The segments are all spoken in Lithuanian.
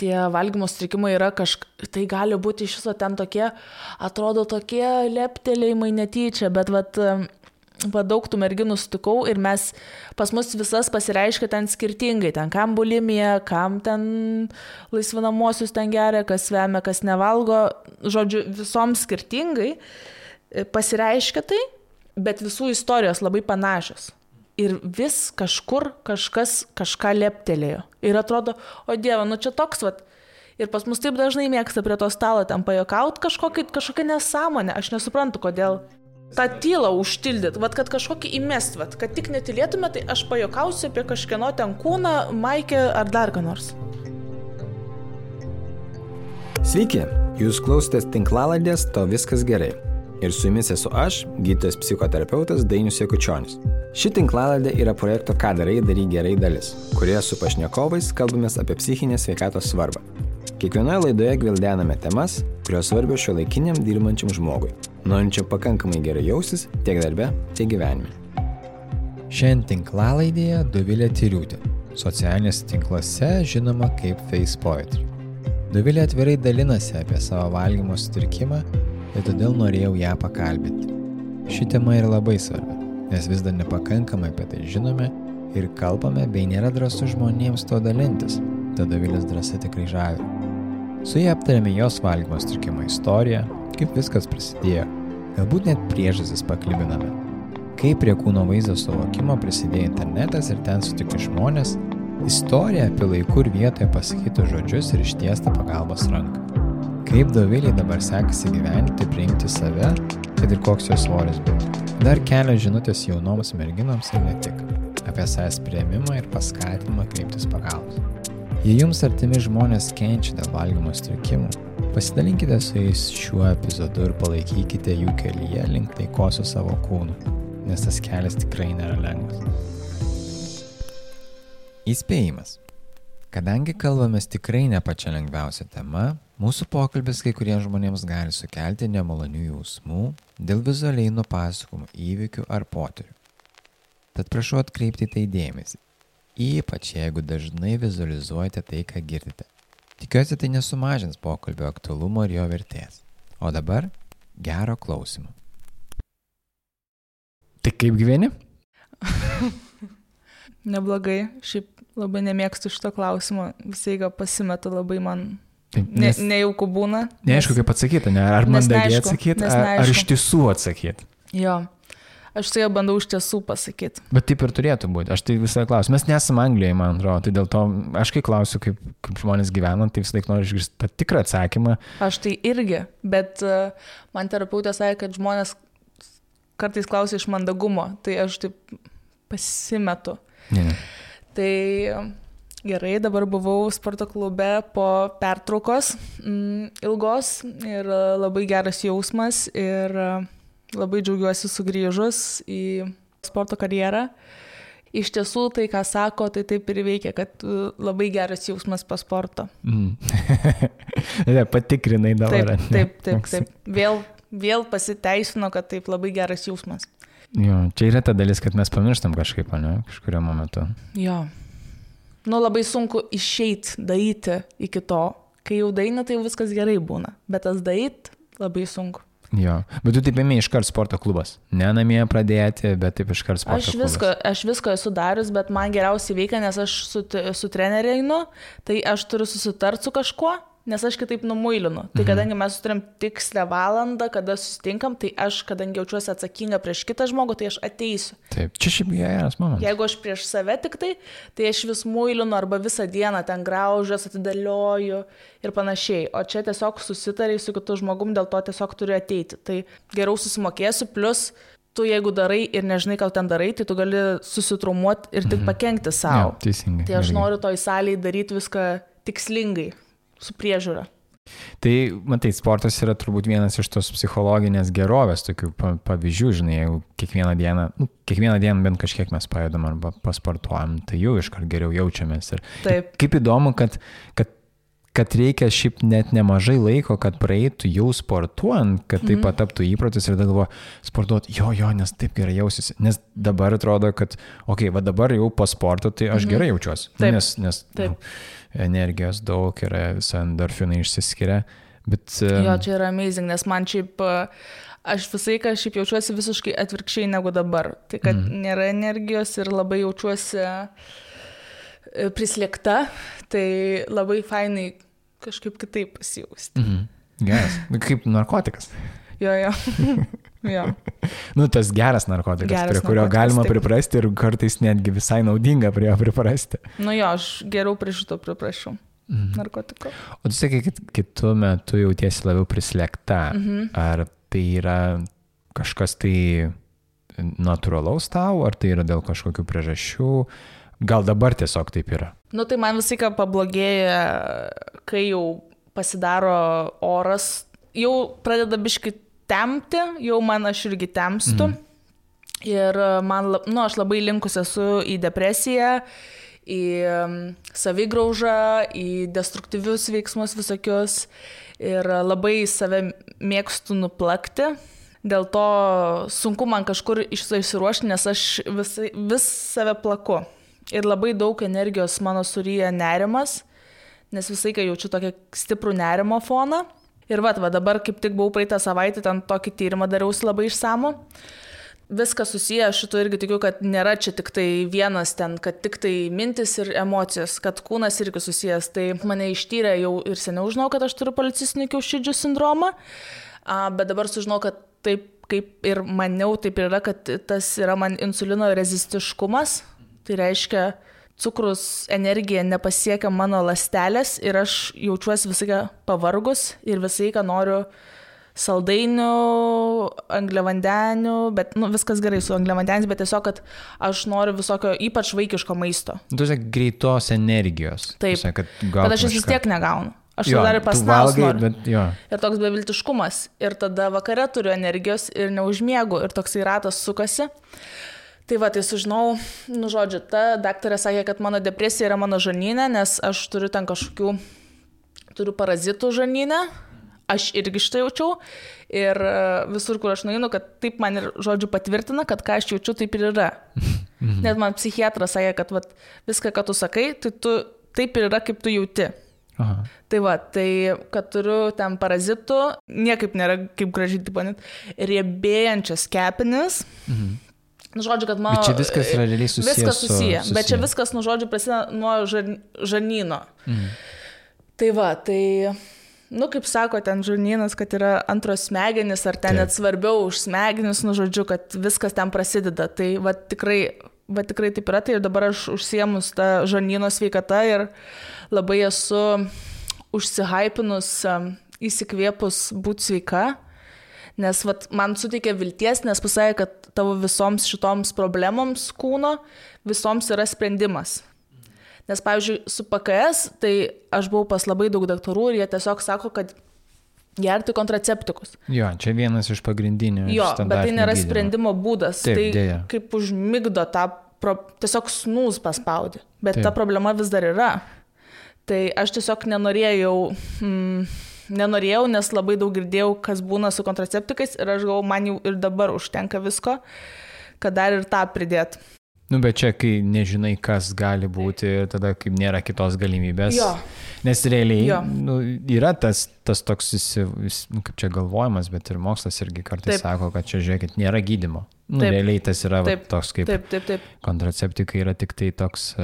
tie valgymo sutrikimai yra tai gali būti iš viso ten tokie, atrodo tokie leptelėjimai netyčia, bet daug tų merginų sutikau ir pas mus visas pasireiškia ten skirtingai, ten kam bulimija, kam ten laisvinamosius ten geria, kas vemia, kas nevalgo, žodžiu, visoms skirtingai pasireiškia tai, bet visų istorijos labai panašios. Ir vis kažkur kažkas kažką leptelėjo. Ir atrodo, o Dieve, čia toks, ir pas mus taip dažnai mėgsta prie to stalo ten pajuokauti kažkokią nesąmonę. Aš nesuprantu, kodėl tą tylą užtildyt, kad kažkokį įmest, kad tik netylėtume, tai aš pajuokausiu apie kažkieno ten kūną, maikę ar dar ką nors. Sveiki, jūs klausotės tinklalaidės To viskas gerai. Ir su jumis esu aš, gydytojas psichoterapeutas Dainius Jakučionis. Ši tinklalaidė yra projekto Ką darai, daryk gerai dalis, kurioje su pašnekovais kalbamės apie psichinės sveikatos svarbą. Kiekvienoje laidoje gvildename temas, kurios svarbios šiuolaikiniam dirbančiam žmogui, norinčiam pakankamai gerai jaustis tiek darbe, tiek gyvenime. Šiandien tinklalaidėje Dovilė Tyriūtė, socialinėse tinkluose žinoma kaip Face Poetry. Dovilė atvirai dalinasi apie savo valgymo sutrikimą ir todėl norėjau ją pakalbinti. Ši tema yra labai svarbi, nes vis dar nepakankamai apie tai žinome ir kalbame, bei nėra drąsu žmonėms to dalintis, tad Dovilės drąsa tikrai žavi. Su ja aptarėme jos valgymo sutrikimo istoriją, kaip viskas prasidėjo, galbūt net priežastis paklibiname, kaip prie kūno vaizdo suvokimo prisidėjo internetas ir ten sutikti žmonės, istorija apie laikų ir vietoje pasakytų žodžius ir ištiestą pagalbos ranką. Kaip Dovilei dabar sekasi gyventi, priimti save, kad ir koks jos svoris būtų. Dar kelios žinutės jaunoms merginoms ir ne tik, apie savęs priėmimą ir paskatinimą kreiptis pagalbos. Jei jums artimi žmonės kenčia dėl valgymo sutrikimų, pasidalinkite su jais šiuo epizodu ir palaikykite jų kelyje link taikos su savo kūnu, nes tas kelias tikrai nėra lengvas. Įspėjimas. Kadangi kalbamės tikrai ne pačia lengviausia tema, mūsų pokalbis kai kuriems žmonėms gali sukelti nemalonių jausmų dėl vizualiai nupasakomų įvykių ar potyrių. Tad prašau atkreipti tai dėmesį, ypač jeigu dažnai vizualizuojate tai, ką girdite. Tikiuosi, tai nesumažins pokalbio aktualumo ir jo vertės. O dabar gero klausimo. Tai kaip gyveni? Neblogai, šiaip labai nemėgstu šito klausimo, visai pasimetu labai man nejauku būna. Neaišku, kaip atsakyti, ar mandagiai atsakyti, ar iš tiesų atsakyti. Jo, aš tai bandau iš tiesų pasakyti. Bet taip ir turėtų būti, aš tai visą klausiu. Mes nesame Anglijoje, man atrodo, tai dėl to aš kai klausiu, kaip žmonės gyvena, tai visą laiką noriu išgirsti tą tikrą atsakymą. Aš tai irgi, bet man terapeutė sakė, kad žmonės kartais klausia iš mandagumo, tai aš taip pasimetu. Ne. Tai gerai, dabar buvau sporto klube po pertraukos ilgos ir labai geras jausmas ir labai džiaugiuosi sugrįžus į sporto karjerą. Iš tiesų, tai ką sako, tai taip ir veikia, kad labai geras jausmas po sporto. Patikrinai dabar. Taip. Vėl pasiteisino, kad taip labai geras jausmas. Jo, čia yra ta dalis, kad mes pamirštam kažkaip, ne, kažkurio momentu. Jo. Labai sunku išeit, daryti iki to. Kai jau daina, tai viskas gerai būna. Bet tas daryti labai sunku. Jo, bet tu taip ėmė iškart sporto klubas. Ne namie pradėti, bet taip iškart sporto klubas. Aš visko esu darius, bet man geriausiai veikia, nes aš su treneriu einu, tai aš turiu susitarti su kažkuo, nes aš kitaip numuilinu. Tai kadangi mes turim tikslę valandą, kada susitinkam, tai aš, kadangi jaučiuosi atsakinga prieš kitą žmogų, tai aš ateisiu. Taip, čia šiaip geras momentas. Jeigu aš prieš save tik tai aš vis muilinu arba visą dieną ten graužiuos, atidėlioju ir panašiai. O čia tiesiog susitariai su kitu žmogum, dėl to tiesiog turiu ateiti. Tai geriau susimokėsiu, plus tu jeigu darai ir nežinai, ką ten darai, tai tu gali susitraumuoti ir tik pakenkti savo. Ja, teisingai. Tai aš noriu toj salėje daryti viską tikslingai. Su priežiūra. Tai, matai, sportas yra turbūt vienas iš tos psichologinės gerovės, tokių pavyzdžių, žinai, jeigu kiekvieną dieną bent kažkiek mes pajudam arba pasportuojam, tai jau iškart geriau jaučiamės. Ir kaip įdomu, kad kad reikia šiaip net nemažai laiko, kad praeitų jau sportuojant, kad tai pataptų įprotis ir tada galvoju, sportuoti, jo, nes taip gerai jausiuosi. Nes dabar atrodo, kad, va dabar jau po sporto, tai aš gerai jaučiuosi. Nes energijos daug yra, visi endorfinai išsiskiria. Bet, jo, čia yra amazing, nes man šiaip, aš visai, kad šiaip jaučiuosi visiškai atvirkščiai negu dabar. Tai, kad nėra energijos ir labai jaučiuosi prislėgta, tai labai fainai kažkaip kitaip pasijausti. Geras, kaip narkotikas. Jo. Tas geras narkotikas, prie kurio galima priprasti ir kartais netgi visai naudinga prie jo priprasti. Aš geriau prie šito priprašiau. Narkotiko. O tu sakai, kad kitu metu jautiesi labiau prislėgta. Ar tai yra kažkas tai natūralaus tau, ar tai yra dėl kažkokių priežasčių? Gal dabar tiesiog taip yra? Tai man visai ką pablogėja, kai jau pasidaro oras, jau pradeda biškai tempti, jau man aš irgi tempstu. Ir man, aš labai linkus esu į depresiją, į savigraužą, į destruktyvius veiksmus visokius ir labai save mėgstu nuplakti. Dėl to sunku man kažkur išsiruošti, nes aš vis save plaku. Ir labai daug energijos mano suryja nerimas, nes visai kai jaučiu tokį stiprų nerimo foną. Ir dabar kaip tik buvau praeitą savaitę, ten tokį tyrimą dariausi labai išsamų. Viskas susiję, aš šito irgi tikiu, kad nėra čia tik tai vienas ten, kad tik tai mintis ir emocijos, kad kūnas irgi susijęs. Tai mane ištyrė jau ir seniau žinau, kad aš turiu policistinių kiaušidžių sindromą, bet dabar sužinau, kad taip kaip ir maniau, taip ir yra, kad tas yra man insulino rezistiškumas. Tai reiškia, cukrus energija nepasiekia mano ląstelės ir aš jaučiuosi visai pavargus ir visai noriu saldainių, angliavandenių, bet viskas gerai su angliavandeniais, bet tiesiog, kad aš noriu visokio ypač vaikiško maisto. Tu sakai greitos energijos. Taip, bet aš vis tiek negaunu. Aš dar ir pasnaus noriu. Ir toks beviltiškumas. Ir tada vakare turiu energijos ir neužmiegu ir toksai ratas sukasi. Tai tai sužinau, žodžiu, ta daktarė sakė, kad mano depresija yra mano žarnyne, nes aš turiu ten turiu parazitų žarnyne. Aš irgi štai jaučiau ir visur, kur aš nueinu, kad taip man ir, žodžiu, patvirtina, kad ką aš jaučiu, taip ir yra. Net man psichiatras sakė, kad viską, ką tu sakai, tai tu taip ir yra, kaip tu jauti. Aha. Tai kad turiu ten parazitų, niekaip nėra kaip gražiai, riebėjančias kepenis. Žodžiu, kad mano... Bet čia viskas yra realiai susijęs. Viskas susiję, bet čia viskas, žodžiu, prasideda nuo žarnyno. Tai... kaip sako ten žarnynas, kad yra antros smegenys, ar ten net svarbiau už smegenis, žodžiu, kad viskas ten prasideda. Tai tikrai taip yra, tai ir dabar aš užsiemus tą žarnyno sveikatą ir labai esu užsihypinus, įsikvėpus būti sveika, nes man suteikė vilties, nes pasakė, kad tavo visoms šitoms problemoms kūno, visoms yra sprendimas. Nes, pavyzdžiui, su PKS, tai aš buvau pas labai daug daktarų ir jie tiesiog sako, kad gerti kontraceptikus. Jo, čia vienas iš pagrindinių. Jo, bet tai nėra sprendimo būdas. Taip, tai dėja. Kaip užmigdo tą, tiesiog snūs paspaudė. Bet ta problema vis dar yra. Tai aš tiesiog nenorėjau, nes labai daug girdėjau, kas būna su kontraceptikais ir aš galvoju, man jau ir dabar užtenka visko, kad dar ir tą pridėt. Bet čia, kai nežinai, kas gali būti, tada kaip nėra kitos galimybės. Jo. Nes realiai yra tas toks, kaip čia galvojimas, bet ir mokslas irgi kartais sako, kad čia, žiūrėkit, nėra gydymo. Realiai tas yra toks kaip kontraceptikai yra tik tai toks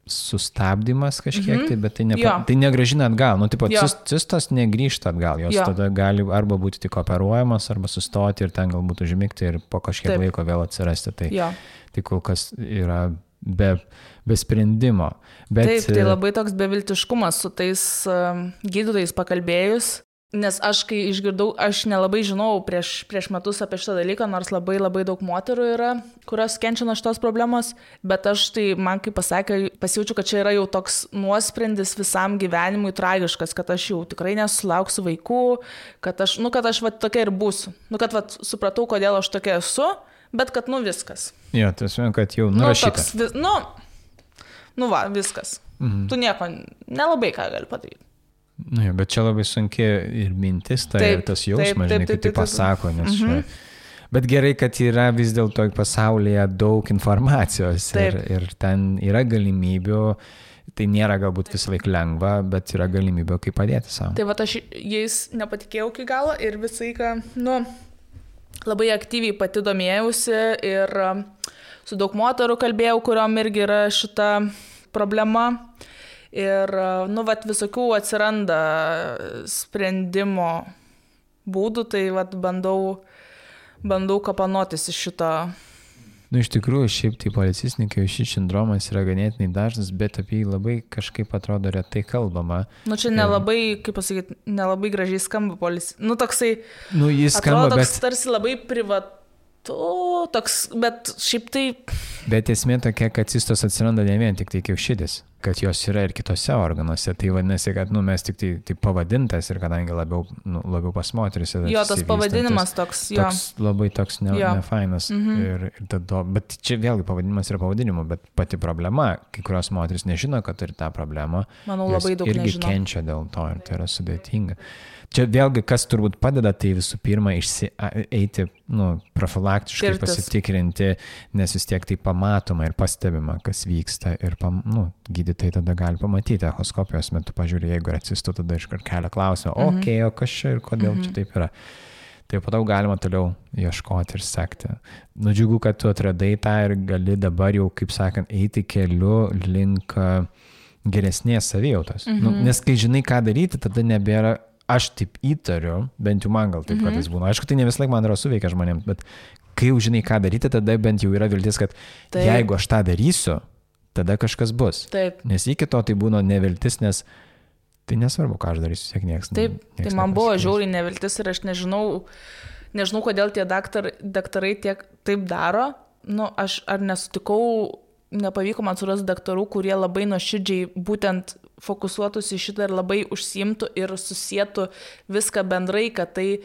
sustabdymas kažkiek, bet tai negrąžina atgal. Cistos negrįžta atgal, jos tada gali arba būti tik operuojamas, arba sustoti ir ten galbūt užmigti ir po kažkiek laiko vėl atsirasti. Tai kol kas yra be sprendimo. Bet, tai labai toks beviltiškumas su tais gydytojais pakalbėjus, nes aš kai išgirdau, aš nelabai žinau prieš metus apie šitą dalyką, nors labai labai daug moterų yra, kurios kenčia nuo šitos problemos, bet aš tai man kaip pasakė, pasijaučiu, kad čia yra jau toks nuosprendis visam gyvenimui tragiškas, kad aš jau tikrai nesulauksiu vaikų, kad aš tokia ir būsiu. Kad supratau, kodėl aš tokia esu, bet kad viskas. Jo, tiesiog, kad jau nurašyta. Viskas. Tu nieko nelabai ką gali padaryti. Nu, bet čia labai sunki ir mintis, ir tas jausmas, žinai, kai tai pasako, nes čia... Bet gerai, kad yra vis dėlto pasaulyje daug informacijos ir ten yra galimybių, tai nėra galbūt visą laiką lengva, bet yra galimybė, kaip padėti savo. Tai va, aš jais nepatikėjau iki galo ir visai, labai aktyviai pati domėjausi ir su daug moterų kalbėjau, kuriuom irgi yra šita problema. Ir, visokių atsiranda sprendimo būdų, tai bandau kapanotis iš šito. Iš tikrųjų, šiaip tai policistininkai, šis sindromas yra ganėtinai dažnas, bet apie jį labai kažkaip atrodo retai kalbama. Čia nelabai, kaip pasakyti, nelabai gražiai skamba toksai, jis skamba, atrodo, toks tarsi labai toks, bet šiaip tai... Bet esmė tokia, kad cistos atsiranda ne vien tik tai kiaušidis, kad jos yra ir kitose organuose. Tai vadinasi, kad mes tik tai pavadintas ir kadangi labiau pas moteris. Jo, tas pavadinimas toks, jo. Labai toks nefainas. Bet čia vėlgi pavadinimas yra pavadinimu, bet pati problema, kai kurios moteris nežino, kad turi tą problemą. Manau, labai daug irgi nežino. Kenčia dėl to ir tai yra sudėtinga. Čia vėlgi, kas turbūt padeda, tai visų pirma eiti profilaktiškai pasitikrinti, nes vis tiek tai pamatoma ir pastebima, kas vyksta ir gydytojai tada gali pamatyti echoskopijos metu, pažiūrė, jeigu yra cistų, tada iškart kelia klausimą, o kas čia ir kodėl čia taip yra. Tai po to galima toliau ieškoti ir sekti. Džiugu, kad tu atradai tą ir gali dabar jau, kaip sakant, eiti keliu link geresnės savijautos. Nes kai žinai, ką daryti, tada nebėra. Aš taip įtariu, bent jau man gal taip kartais būna. Aišku, tai ne vis laik man yra suveikia žmonėms, bet kai jau žinai, ką daryti, tada bent jau yra viltis, kad jeigu aš tą darysiu, tada kažkas bus. Taip. Nes iki to tai būna neviltis, nes tai nesvarbu, ką aš darysiu, siek nieks. Taip, tai man buvo žiauriai neviltis ir aš nežinau kodėl tie daktarai taip daro. Aš ar nesutikau, nepavyko man surasti daktarų, kurie labai nuoširdžiai būtent fokusuotųsi šitą ir labai užsiimtų ir susietų viską bendrai, kad tai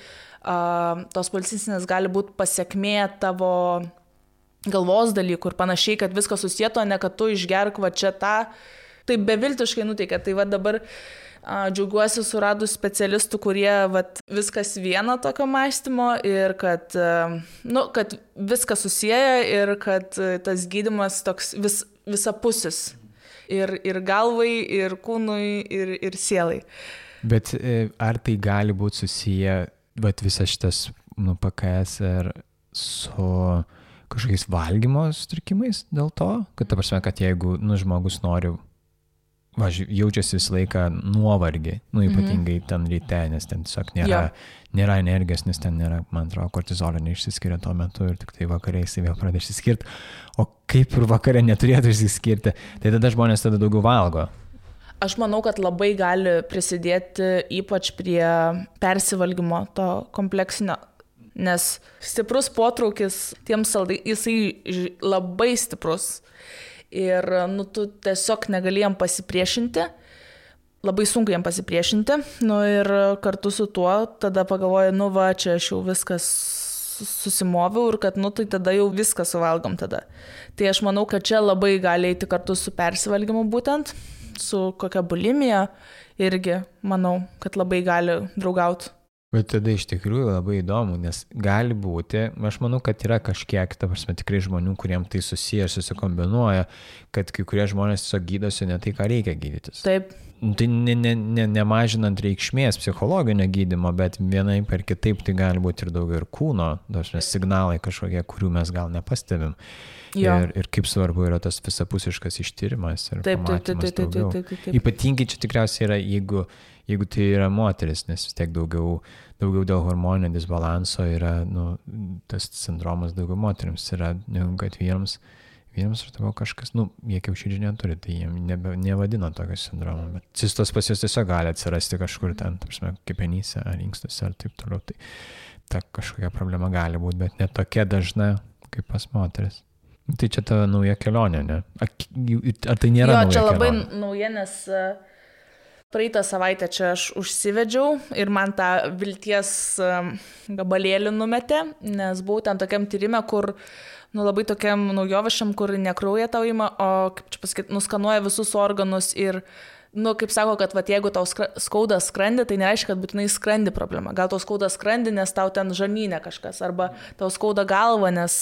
tos policinės gali būti pasiekmė tavo galvos dalykų ir panašiai, kad viską susietų, ne kad tu išgerk va čia tą. Tai beviltiškai nuteikia. Tai va dabar džiaugiuosi suradus specialistų, kurie viskas viena tokio mąstymo ir kad viskas susieja ir kad tas gydymas toks visapusis. Ir galvai, ir kūnui, ir sielai. Bet ar tai gali būti susiję, visas šitas PKS ir su kažkokiais valgymo sutrikimais dėl to? Kad ta prasme, kad jeigu žmogus nori, jaučiasi visą laiką nuovargį, ypatingai ten ryte, nes ten tiesiog nėra energijos, nes ten nėra, man atrodo, kortizolio neišsiskiria tuo metu ir tik tai vakare jisai vėl pradeda išsiskirti. O kaip ir vakare neturėtų išsiskirti, tai tada žmonės tada daugiau valgo. Aš manau, kad labai gali prisidėti ypač prie persivalgymo to kompleksinio, nes stiprus potraukis tiems saldai, jisai labai stiprus. Ir tu tiesiog negali jam pasipriešinti, labai sunku jam pasipriešinti, ir kartu su tuo tada pagalvoju, čia aš jau viskas susimoviau ir kad, tai tada jau viską suvalgom tada. Tai aš manau, kad čia labai gali eiti kartu su persivalgymu būtent, su kokia bulimija irgi, manau, kad labai gali draugauti. Bet tada iš tikrųjų labai įdomu, nes gali būti, aš manau, kad yra kažkiek, ta prasme, tikrai žmonių, kuriem tai susiję ir susikombinuoja, kad kai kurie žmonės tiesiog gydosi ne tai, ką reikia gydytis. Taip. Tai nemažinant reikšmės psichologinio gydymo, bet vienai per kitaip tai gali būti ir daugiau ir kūno, signalai kažkokie, kurių mes gal nepastebim. Ir kaip svarbu yra tas visapusiškas ištyrimas ir pamatymas daugiau. Ypatingai čia tikriausiai yra, jeigu tai yra moteris, nes vis tiek daugiau dėl hormoninio disbalanso yra, tas sindromas daugiau moteriams yra, negu kad vyrams aš tavo kažkas, jie kiaušidžių neturi, tai jie nevadina tokio sindromo, bet cistos pas jos tiesiog gali atsirasti kažkur ten, kepenyse ar inkstuose ar taip toliau, tai ta kažkokia problema gali būti, bet ne tokia dažna kaip pas moteris. Tai čia ta nauja kelionė, ne? Ar tai nėra nauja kelionė? Jo, čia labai nauja, nes praeitą savaitę čia aš užsivedžiau ir man tą vilties gabalėlį numetė, nes buvau ten tokiam tyrime, kur labai tokiam naujovišam, kur ne kraują tau ima, o, kaip čia pasakyti, nuskanuoja visus organus ir Nu, kaip sako, kad vat, jeigu tau skauda skrandį, tai nereiškia, kad būtinai skrandį problema. Gal tau skauda skrandį, nes tau ten žarnyne kažkas, arba tau skauda galva, nes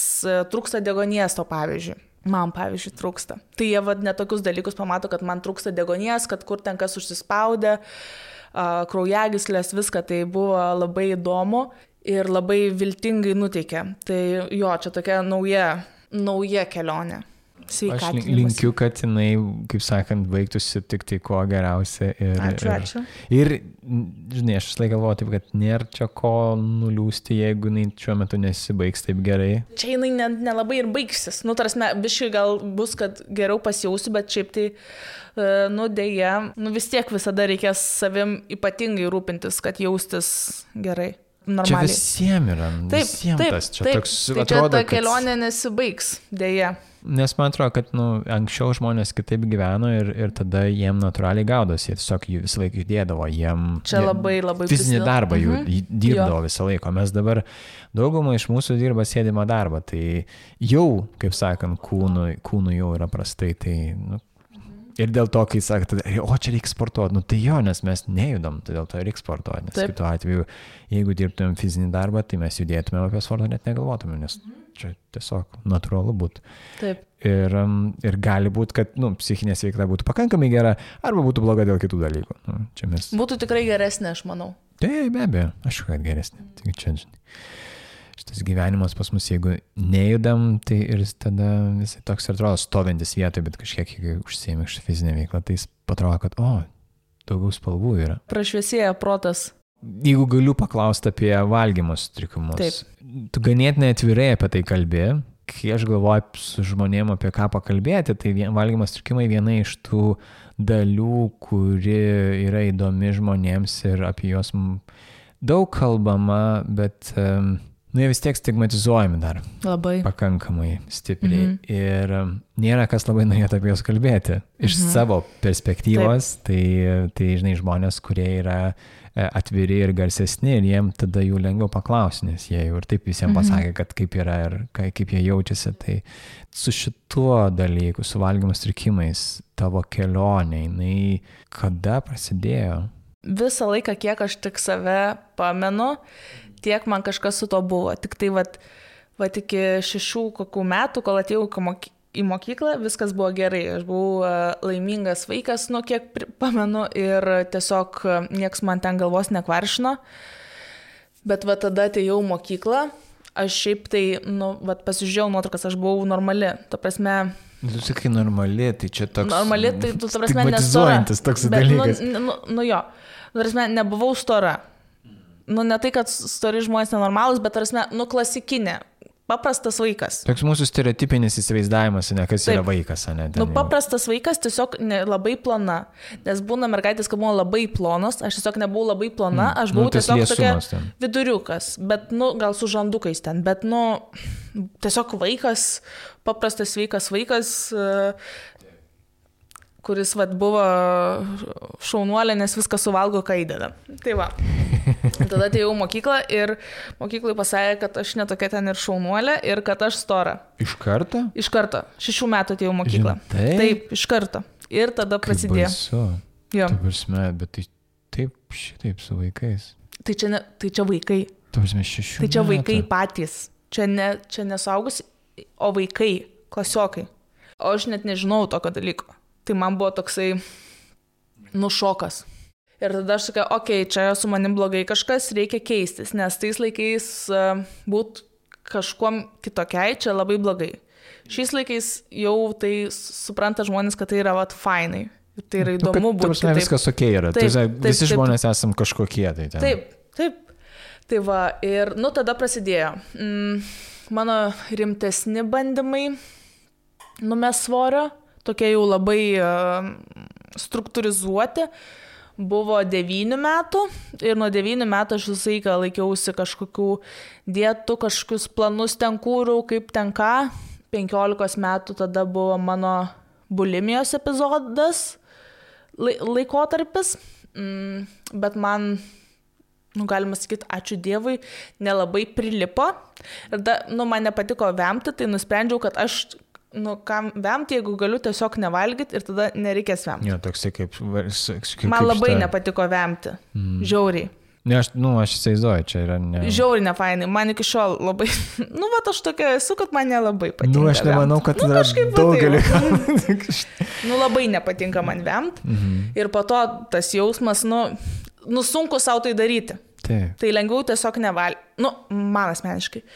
trūksta deguonies tau, pavyzdžiui. Man, pavyzdžiui, trūksta. Tai jie vat netokius dalykus pamato, kad man trūksta deguonies, kad kur ten kas užsispaudė, kraujagyslės, viską. Tai buvo labai įdomu ir labai viltingai nuteikė. Tai jo, čia tokia nauja kelionė. Aš linkiu, kad jinai, kaip sakant, baigtųsi tik tai kuo geriausia. Ačiū. Ir, žinai, aš vis laik galvoju taip, kad nėra čia ko nuliūsti, jeigu jinai šiuo metu nesibaigs taip gerai. Čia jinai nelabai ir baigsis. Nu, tarsi, biškai gal bus, kad geriau pasijausiu, bet šiaip tai, nu, dėja, nu, vis tiek visada reikės savim ypatingai rūpintis, kad jaustis gerai. Normaliai. Čia visiems yra. Taip. Toks, tai atrodo, čia ta kelionė nesibaigs, dėja. Nes man atrodo, kad anksčiau žmonės kitaip gyveno ir tada jiem natūraliai gaudosi. Jie tiesiog visą laiką judėdavo. Čia labai fizinį darbą jų dirbdavo visą laiką. Mes dabar daugumą iš mūsų dirba sėdimą darbą. Tai jau, kaip sakant, kūnų jau yra prastai. Tai, ir dėl to, kai sakot, čia reikia sportuoti, tai jo, nes mes nejudam, tai dėl to reikia sportuoti. Nes kitu atveju, jeigu dirbtumėm fizinį darbą, tai mes judėtumėm apie sportą, net negalvotumėm, nes čia tiesiog natūralu būtų. Taip. Ir gali būti, kad psichinė sveikata būtų pakankamai gera, arba būtų bloga dėl kitų dalykų. Būtų tikrai geresnė, aš manau. Taip, be abejo, aš kad geresnė. Tik čia, šitas gyvenimas pas mus, jeigu nejudam, tai ir tada visai toks ir atrodo stovintis vietoje, bet kažkiek, jeigu užsiėmė iš fizinę veiklą, tai jis atrodo, kad, daugiau spalvų yra. Prašviesėja protas. Jeigu galiu paklausti apie valgymo sutrikimus, tu ganėtinai atvirai apie tai kalbi, kai aš galvoju su žmonėm apie ką pakalbėti, tai valgymo sutrikimai viena iš tų dalių, kuri yra įdomi žmonėms ir apie juos daug kalbama, bet jie vis tiek stigmatizuojami dar. Labai. Pakankamai stipriai. Ir nėra kas labai norėtų apie juos kalbėti. Iš savo perspektyvos, tai žinai, žmonės, kurie yra atviri ir garsesni, ir jiem tada jų lengviau paklausti, nes jie jau ir taip visiems pasakė, kad kaip yra ir kaip jie jaučiasi. Tai su šituo dalyku, su valgymo sutrikimais, tavo kelionė, jinai kada prasidėjo? Visą laiką, kiek aš tik save pamenu, tiek man kažkas su to buvo. Tik tai vat iki 6 kokių metų, kol atėjau į mokyklą, viskas buvo gerai. Aš buvau laimingas vaikas, kiek pamenu, ir tiesiog nieks man ten galvos nekvaršino. Bet tada atėjau į mokyklą, aš šiaip tai, pasižiūrėjau nuotraukas, aš buvau normali. Ta prasme... Tu sakai normali, tai čia toks... Normali, tai tu, ta prasme, stigmatizuojantis toks dalykas. Jo, ta prasme, nebuvau stora. Ne tai, kad stori žmonės nenormalūs, bet, tarsi, klasikinė, paprastas vaikas. Toks mūsų stereotipinis įsivaizdavimas, kas yra vaikas, ne? Paprastas vaikas, tiesiog labai plona. Nes būna mergaitės, kad buvo labai plonos, aš tiesiog nebuvau labai plona, aš buvau tiesiog tokia viduriukas, bet, gal su žandukais ten, bet, tiesiog vaikas, paprastas sveikas vaikas, kuris buvo šaunuolė, nes viską suvalgo, ką įdeda. Tai va. Tada atėjau mokyklą ir mokyklai pasakė, kad aš netokia ten ir šaunuolė ir kad aš stora. Iš karto? Iš karto. 6 metų atėjau mokyklą. Taip, iš karto. Ir tada prasidėjo. Jo. Bet tai šitaip su vaikais. Tai čia vaikai. Tai čia vaikai patys. Čia nesaugus, o vaikai, klasiokai. O aš net nežinau tokio dalyko. Tai man buvo toksai, šokas. Ir tada aš sakiau, čia su manim blogai kažkas, reikia keistis, nes tais laikais būt kažkuom kitokiai, čia labai blogai. Šiais laikais jau tai supranta žmonės, kad tai yra fainai. Tai yra įdomu būti. Taip, viskas okei yra. Visi žmonės esam kažkokie. Taip. Tai va, ir tada prasidėjo. Mano rimtesni bandymai numest svorio, tokie jau labai struktūrizuoti, buvo 9 metų ir nuo 9 metų aš visą laiką laikiausi kažkokių dietų, kažkokius planus ten kūriau, kaip ten ką. 15 metų tada buvo mano bulimijos epizodas, laikotarpis, bet man, galima sakyti, ačiū Dievui, nelabai prilipo. Ir man nepatiko vemti, tai nusprendžiau, kad aš kam vemti, jeigu galiu tiesiog nevalgyti ir tada nereikės vemti. Jo, toksai kaip Man labai nepatiko vemti. Žiauriai. Ne, aš įsivaizduoju, čia yra ne... Žiauriai nefainai. Man iki šiol labai... Aš tokia esu, kad man nelabai patinka. Aš nemanau, kad yra daugeliu. Labai nepatinka man vemti. Ir po to tas jausmas, sunku savo tai daryti. Taip. Tai lengviau tiesiog nevalgyti. Man asmeniškai.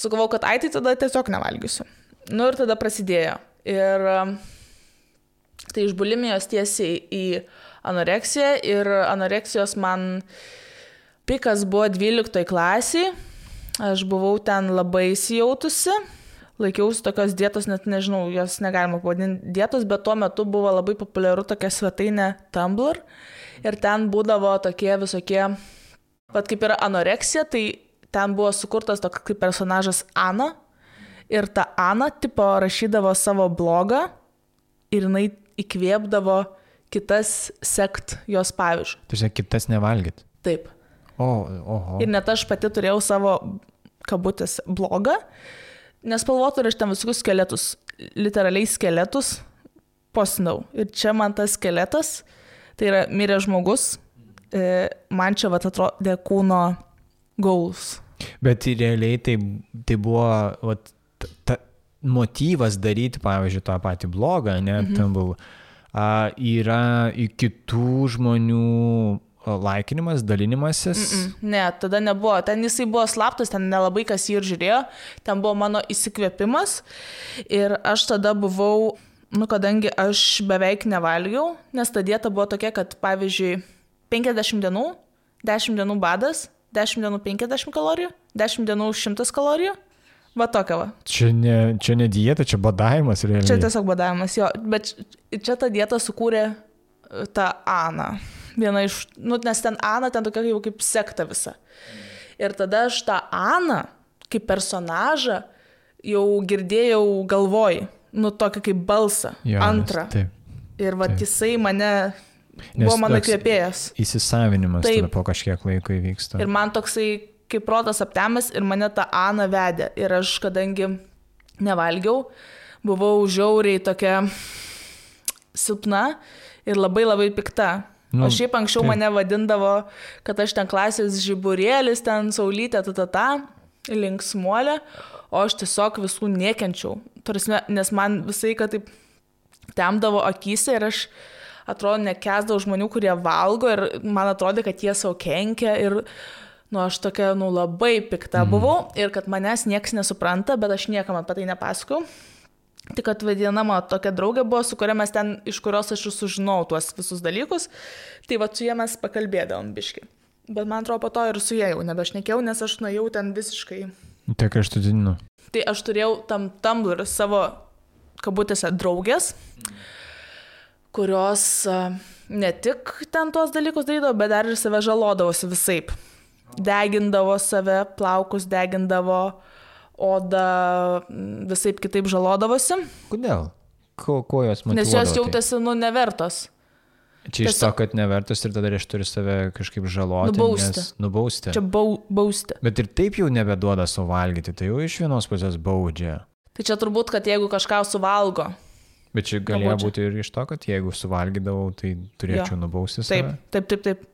Sugalvau, kad tai tada tiesiog nevalgysiu. Ir tada prasidėjo. Ir tai iš bulimijos tiesiai į anoreksiją. Ir anoreksijos man pikas buvo 12 klasiai. Aš buvau ten labai įsijautusi. Laikiausi tokios dietos, net nežinau, jos negalima pavadinti dietos, bet tuo metu buvo labai populiaru tokia svetainė Tumblr. Ir ten būdavo tokie visokie, kaip yra anoreksija, tai ten buvo sukurtas toks kaip personažas Ana. Ir ta Ana tipo rašydavo savo blogą ir jinai įkvėpdavo kitas sekt jos pavyzdžių. Tai žiūrėk, kitas nevalgyt. Taip. Oho. Ir net aš pati turėjau savo kabutės blogą, nespalvotų ir aš ten visokius skeletus, literaliai skeletus postinau. Ir čia man tas skeletas, tai yra miręs žmogus, man čia atrodė kūno gaulus. Bet realiai tai buvo motyvas daryti, pavyzdžiui, tą patį blogą, tam buvo, yra į kitų žmonių laikinimas, dalinimasis. Ne, tada nebuvo. Ten jisai buvo slaptas, ten nelabai kas jį ir žiūrėjo. Ten buvo mano įsikvėpimas. Ir aš tada buvau, kadangi aš beveik nevalgiau, nes ta dieta buvo tokia, kad pavyzdžiui, 50 dienų, 10 dienų badas, 10 dienų 50 kalorijų, 10 dienų 100 kalorijų. Va tokia va. Čia ne dieta, čia badavimas realiai. Čia tiesiog badavimas, jo. Bet čia tą dietą sukūrė ta Ana. Viena iš, nes ten Ana, ten tokia jau kaip sekta visa. Ir tada aš tą Aną, kaip personažą, jau girdėjau galvoj, tokį kaip balsą, antrą. Ir va jisai buvo mano kvėpėjas. Įsisavinimas tada po kažkiek laiko įvyksta. Ir man toksai kaip protas aptemęs ir mane ta Ana vedė. Ir aš, kadangi nevalgiau, buvau žiauriai tokia silpna ir labai labai pikta. O šiaip anksčiau mane vadindavo, kad aš ten klasės žiburėlis, ten saulytė, linksmuolė, o aš tiesiog visų niekenčiau. Nes man visai, kad taip temdavo akyse ir aš atrodo nekęsdavau žmonių, kurie valgo ir man atrodė, kad jie savo kenkia ir aš tokia labai pikta buvau ir kad manęs nieks nesupranta, bet aš niekam apie tai nepasakau. Tik kad viena mano tokia draugė buvo, su kuria mes ten, iš kurios aš sužinau tuos visus dalykus, tai su jie mes pakalbėdavom biški. Bet man atrodo, po to ir su jie jau nebešnekėjau, nes aš nuėjau ten visiškai. Tai kraštutiniu. Tai aš turėjau tam Tumblr savo kabutėse draugės, kurios ne tik ten tuos dalykus darydavo, bet dar ir save žalodavosi visaip. Degindavo save, plaukus degindavo, oda visaip kitaip žalodavosi. Kodėl? Ko jos motyvuodavo? Nes jos jautėsi, nevertos. Čia iš to, kad nevertos ir tada aš turiu save kažkaip žaloti. Nubausti. Čia bausti. Bet ir taip jau nebeduoda savo valgyti, tai jau iš vienos pusės baudžia. Tai čia turbūt, kad jeigu kažką suvalgo. Bet čia galėjo būti ir iš to, kad jeigu suvalgydavau, tai turėčiau nubausti save. Taip.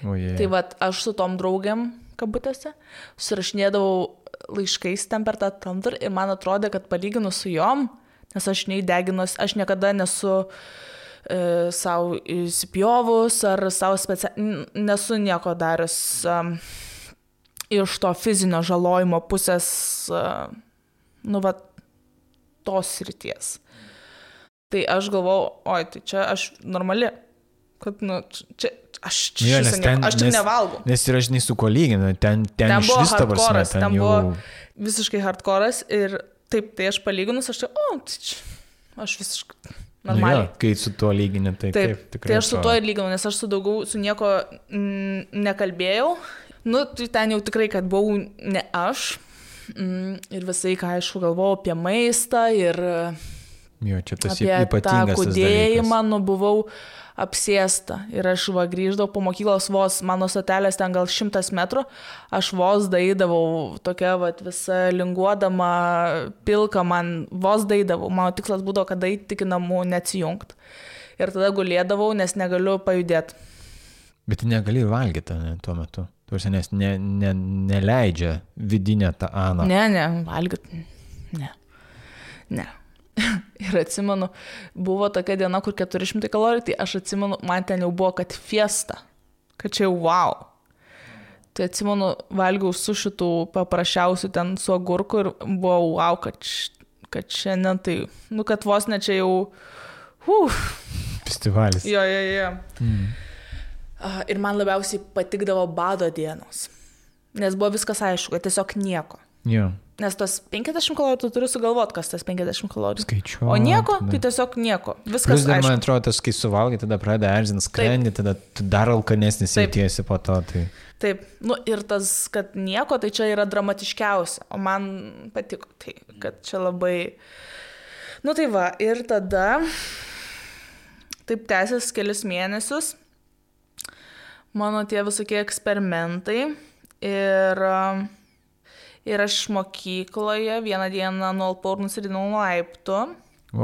Tai aš su tom draugiam, kabutėse, susirašinėdavau laiškais ten per tą Tumblr ir man atrodė, kad palyginus su jom, nes aš neįdeginus, aš niekada nesu savo įsipjovus ar savo nesu nieko darius iš to fizinio žalojimo pusės, tos srities. Tai aš galvau, tai čia aš normali, kad, čia aš čia nevalgau. Nes ir aš su kuo lyginu, ten iš vis ta prasme, ten buvo visiškai hardcore'as ir taip, tai aš palyginus, aš aš visiškai normaliai. Kai su tuo lygini, tai taip tikrai. Tai aš su tuo ir lyginu, nes aš su nieko nekalbėjau. Tai ten jau tikrai, kad buvau ne aš. Ir visai, ką aišku, galvojau apie maistą ir Jo, čia tas apie tą ypatingas kūdėjimą, buvau apsėsta. Ir aš grįždavau po mokyklos vos, mano stotelės ten gal 100 metrų, aš vos daidavau, tokia visa linguodama, pilka man, vos daidavau. Mano tikslas būdavo, kad daidai iki namų neatsijungti. Ir tada gulėdavau, nes negaliu pajudėti. Bet negali valgyti tuo metu. Tuosi, nes neleidžia vidinę tą aną. Ne, valgyti. Ne. Ir atsimenu, buvo tokia diena, kur 400 kalorijų, tai aš atsimenu, man ten jau buvo, kad fiesta. Kad čia jau wow. Tai atsimenu, valgiau su šitų paprasčiausių ten su agurku ir buvo wow, kad šiandien tai, kad vos ne čia jau festivalis. Jo. Ir man labiausiai patikdavo bado dienos. Nes buvo viskas aišku, kad tiesiog nieko. Jo. Nes tos 50 kalorijų tu turi sugalvoti, kas tas 50 kalorijų. Skaičiuoti. O nieko, tai tiesiog nieko. Viskas Plus dar, aišku. man atrodo, tas, kai suvalgai, tada pradeda erzint skrandį, tada tu dar alkanesnis jautiesi po to. Tai... Taip, ir tas, kad nieko, tai čia yra dramatiškiausia. O man patiko tai, kad čia labai... Tai va, ir tada taip tęsės kelis mėnesius. Mano tie visokie eksperimentai ir aš mokykloje vieną dieną nualpau ir nusiridinau nuo laiptų.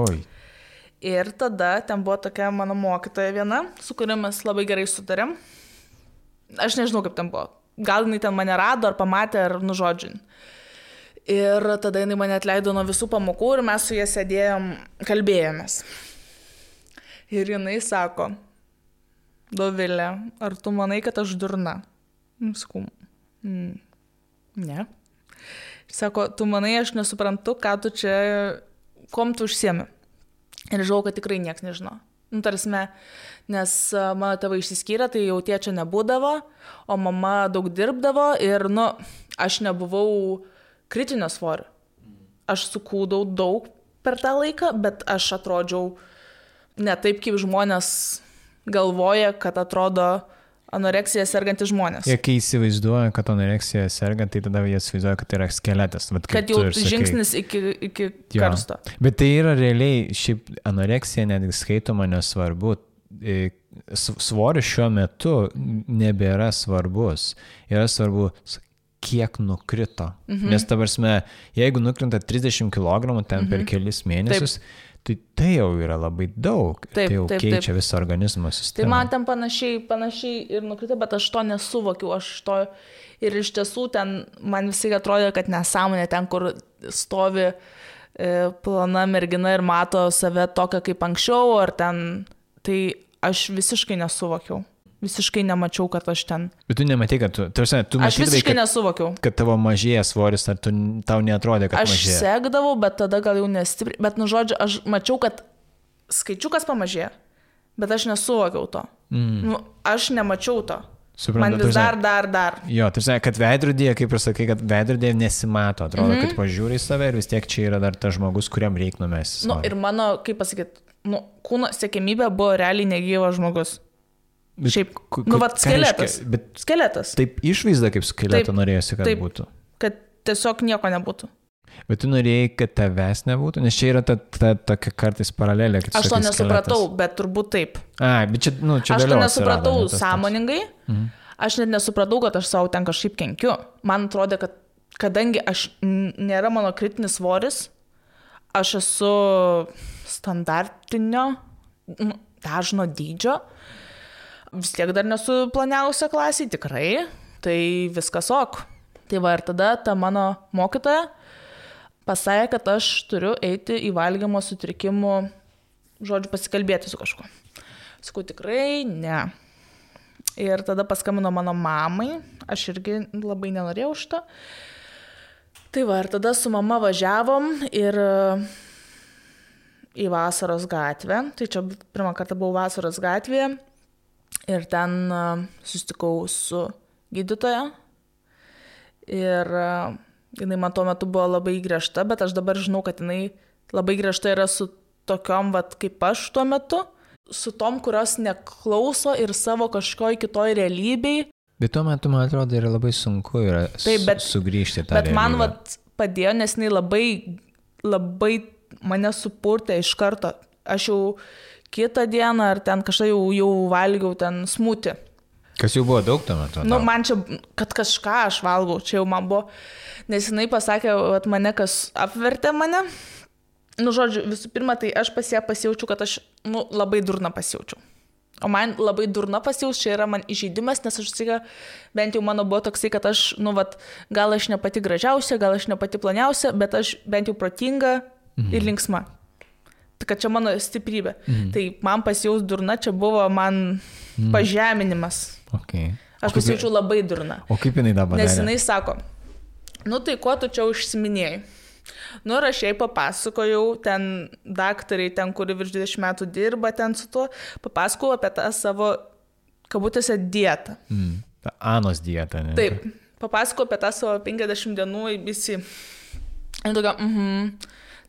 Oi. Ir tada ten buvo tokia mano mokytoja viena, su kuria mes labai gerai sutarėm. Aš nežinau, kaip ten buvo. Gal jinai ten mane rado, ar pamatė, ar nužodžiai. Ir tada jinai mane atleido nuo visų pamokų ir mes su jie sėdėjom, kalbėjomės. Ir jinai sako: Dovilė, ar tu manai, kad aš durna? Sakau, ne. Sako, tu manai, aš nesuprantu, ką tu čia, kom tu užsiemi. Ir žinau, kad tikrai nieks nežino. Tarsime, nes mano tėvai išsiskyrė, tai jau tėčio nebūdavo, o mama daug dirbdavo ir, aš nebuvau kritinio svorio. Aš sukūdau daug per tą laiką, bet aš atrodžiau ne taip, kaip žmonės galvoja, kad atrodo anoreksija sergantys žmonės. Jie kai įsivaizduoja, kad anoreksija sergant, tai tada jie įsivaizduoja, kad tai yra skeletas. Kad jau žingsnis iki karsto. Bet tai yra realiai, šiaip anoreksija netgi skaitoma nesvarbu. Svoris šiuo metu nebėra svarbus. Yra svarbu, kiek nukrito. Nes ta prasme, jeigu nukrinta 30 kg ten per kelis mėnesius, tai jau yra labai daug. Tai jau keičia visą organizmo sistemą. Tai man ten panašiai ir nukrito, bet aš to nesuvokiau. Ir iš tiesų ten man visai atrodė, kad nesąmonė ten, kur stovi plona mergina ir mato save tokią kaip anksčiau, ar ten, tai aš visiškai nesuvokiau. Visiškai nemačiau, kad aš ten. Bet tu nematai, kad tu aš visiškai nesuvokiau. Kad tavo mažėja svoris, ar tau neatrodė, kad mažėja? Aš sekdavau, bet tada gal jau nestipriai. Bet, žodžiu, aš mačiau, kad skaičiukas pamažėjo, bet aš nesuvokiau to. Aš nemačiau to. Suprantu, man vis dar. Jo, tai kad veidrodėje, kaip ir sakai, kad veidrodėje nesimato. Atrodo, kad pažiūri į save ir vis tiek čia yra dar tas žmogus, kuriam reik numesti. Ir mano, kaip pasakyti, kūno siekiamybė buvo realiai negyvas žmogus. Šiaip, skeletas. Skeletas. Taip išvaizda kaip skeleto norėjosi, kad būtų. Kad tiesiog nieko nebūtų. Bet tu norėjai, kad tavęs nebūtų? Nes čia yra tokia kartais paralelė. Aš to nesupratau, bet turbūt taip. Bet čia aš to nesupratau sąmoningai. Aš net nesupratau, kad aš savo ten kažkaip kenkiu. Man atrodė, kad kadangi nėra mano kritinis svoris, aš esu standartinio, dažno dydžio. Vis tiek dar nesu planiausia klasiai, tikrai, tai viskas ok. Tai va ir tada ta mano mokytoja pasakė, kad aš turiu eiti į valgymo sutrikimų, pasikalbėti su kažkuo. Sakau, tikrai ne. Ir tada paskambino mano mamai, aš irgi labai nenorėjau šito. Tai va ir tada su mama važiavom ir į Vasaros gatvę. Tai čia pirmą kartą buvau Vasaros gatvėje. Ir ten susitikau su gydytoja ir jinai man tuo metu buvo labai griežta, bet aš dabar žinau, kad jinai labai griežta yra su tokiom, kaip aš tuo metu, su tom, kurios neklauso ir savo kažkoj kitoj realybei. Bet tuo metu, man atrodo, yra labai sunku sugrįžti tą realybę. Bet man padėjo, nes jinai labai mane supurtė iš karto. Aš jau kitą dieną ar ten kažką jau valgiau ten smūtį. Kas jau buvo daug tuo metu? Nu, man čia, kad kažką aš valgau, čia jau man buvo, nes jinai pasakė, kad mane kas apvertė mane. Nu, žodžiu, visų pirma, tai aš pasijaučiu, kad aš, labai durna pasijaučiu. O man labai durna pasijaučiu, čia yra man įžeidimas, nes aš sakyka, bent jau mano buvo toksai, kad aš, gal aš ne pati gražiausia, gal aš ne pati planiausia, bet aš bent jau protinga ir linksma. Kad čia mano stiprybė. Tai man pasijaus durna, čia buvo man pažeminimas. Okay. Aš pasijaučiu labai durna. O kaip jinai dabar? Nes jinai sako, tai ko tu čia užsiminėjai? Ir aš jai papasakojau, ten daktariai, ten, kuri virš 20 metų dirba ten su tuo, papasakojau apie tą savo, kabutėse, dietą. Anos dietą, ne? Taip, papasakojau apie tą savo 50 dienų įbisi. Ir tokia,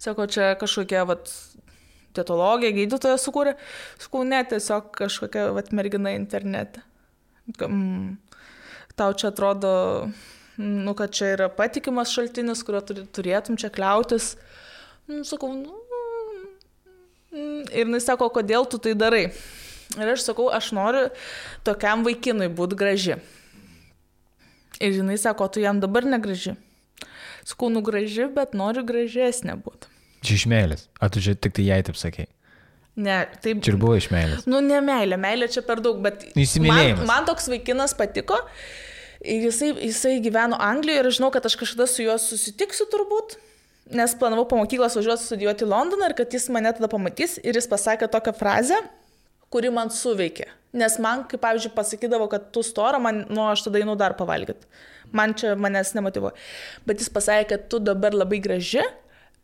sako, čia kažkokia, dietologija, gydytoja sukūrė. Sakau, ne, tiesiog kažkokia, mergina internete. Tau čia atrodo, kad čia yra patikimas šaltinis, kurio turėtum čia kliautis. Sakau, ir jinai sako, kodėl tu tai darai. Ir aš sakau, aš noriu tokiam vaikinui būti graži. Ir jinai sako, tu jam dabar negraži. Sakau, graži, bet noriu gražesnė būti. Čia iš meilės. A tu čia tik tai jai taip sakei? Ne, taip. Čia ir buvo iš meilės. Ne meilė, meilė čia per daug, bet man toks vaikinas patiko. Ir jisai gyveno Anglijoje ir žinau, kad aš kažkada su juo susitiksiu turbūt, nes planavau po mokyklos važiuoti studijuoti į Londoną ir kad jis mane tada pamatys ir jis pasakė tokią frazę, kuri man suveikė. Nes man, kaip pavyzdžiui, pasakydavo, kad tu stora, aš tada einu dar pavalgyti. Manęs nemotyvuoja. Bet jis pasakė, kad tu dabar labai graži,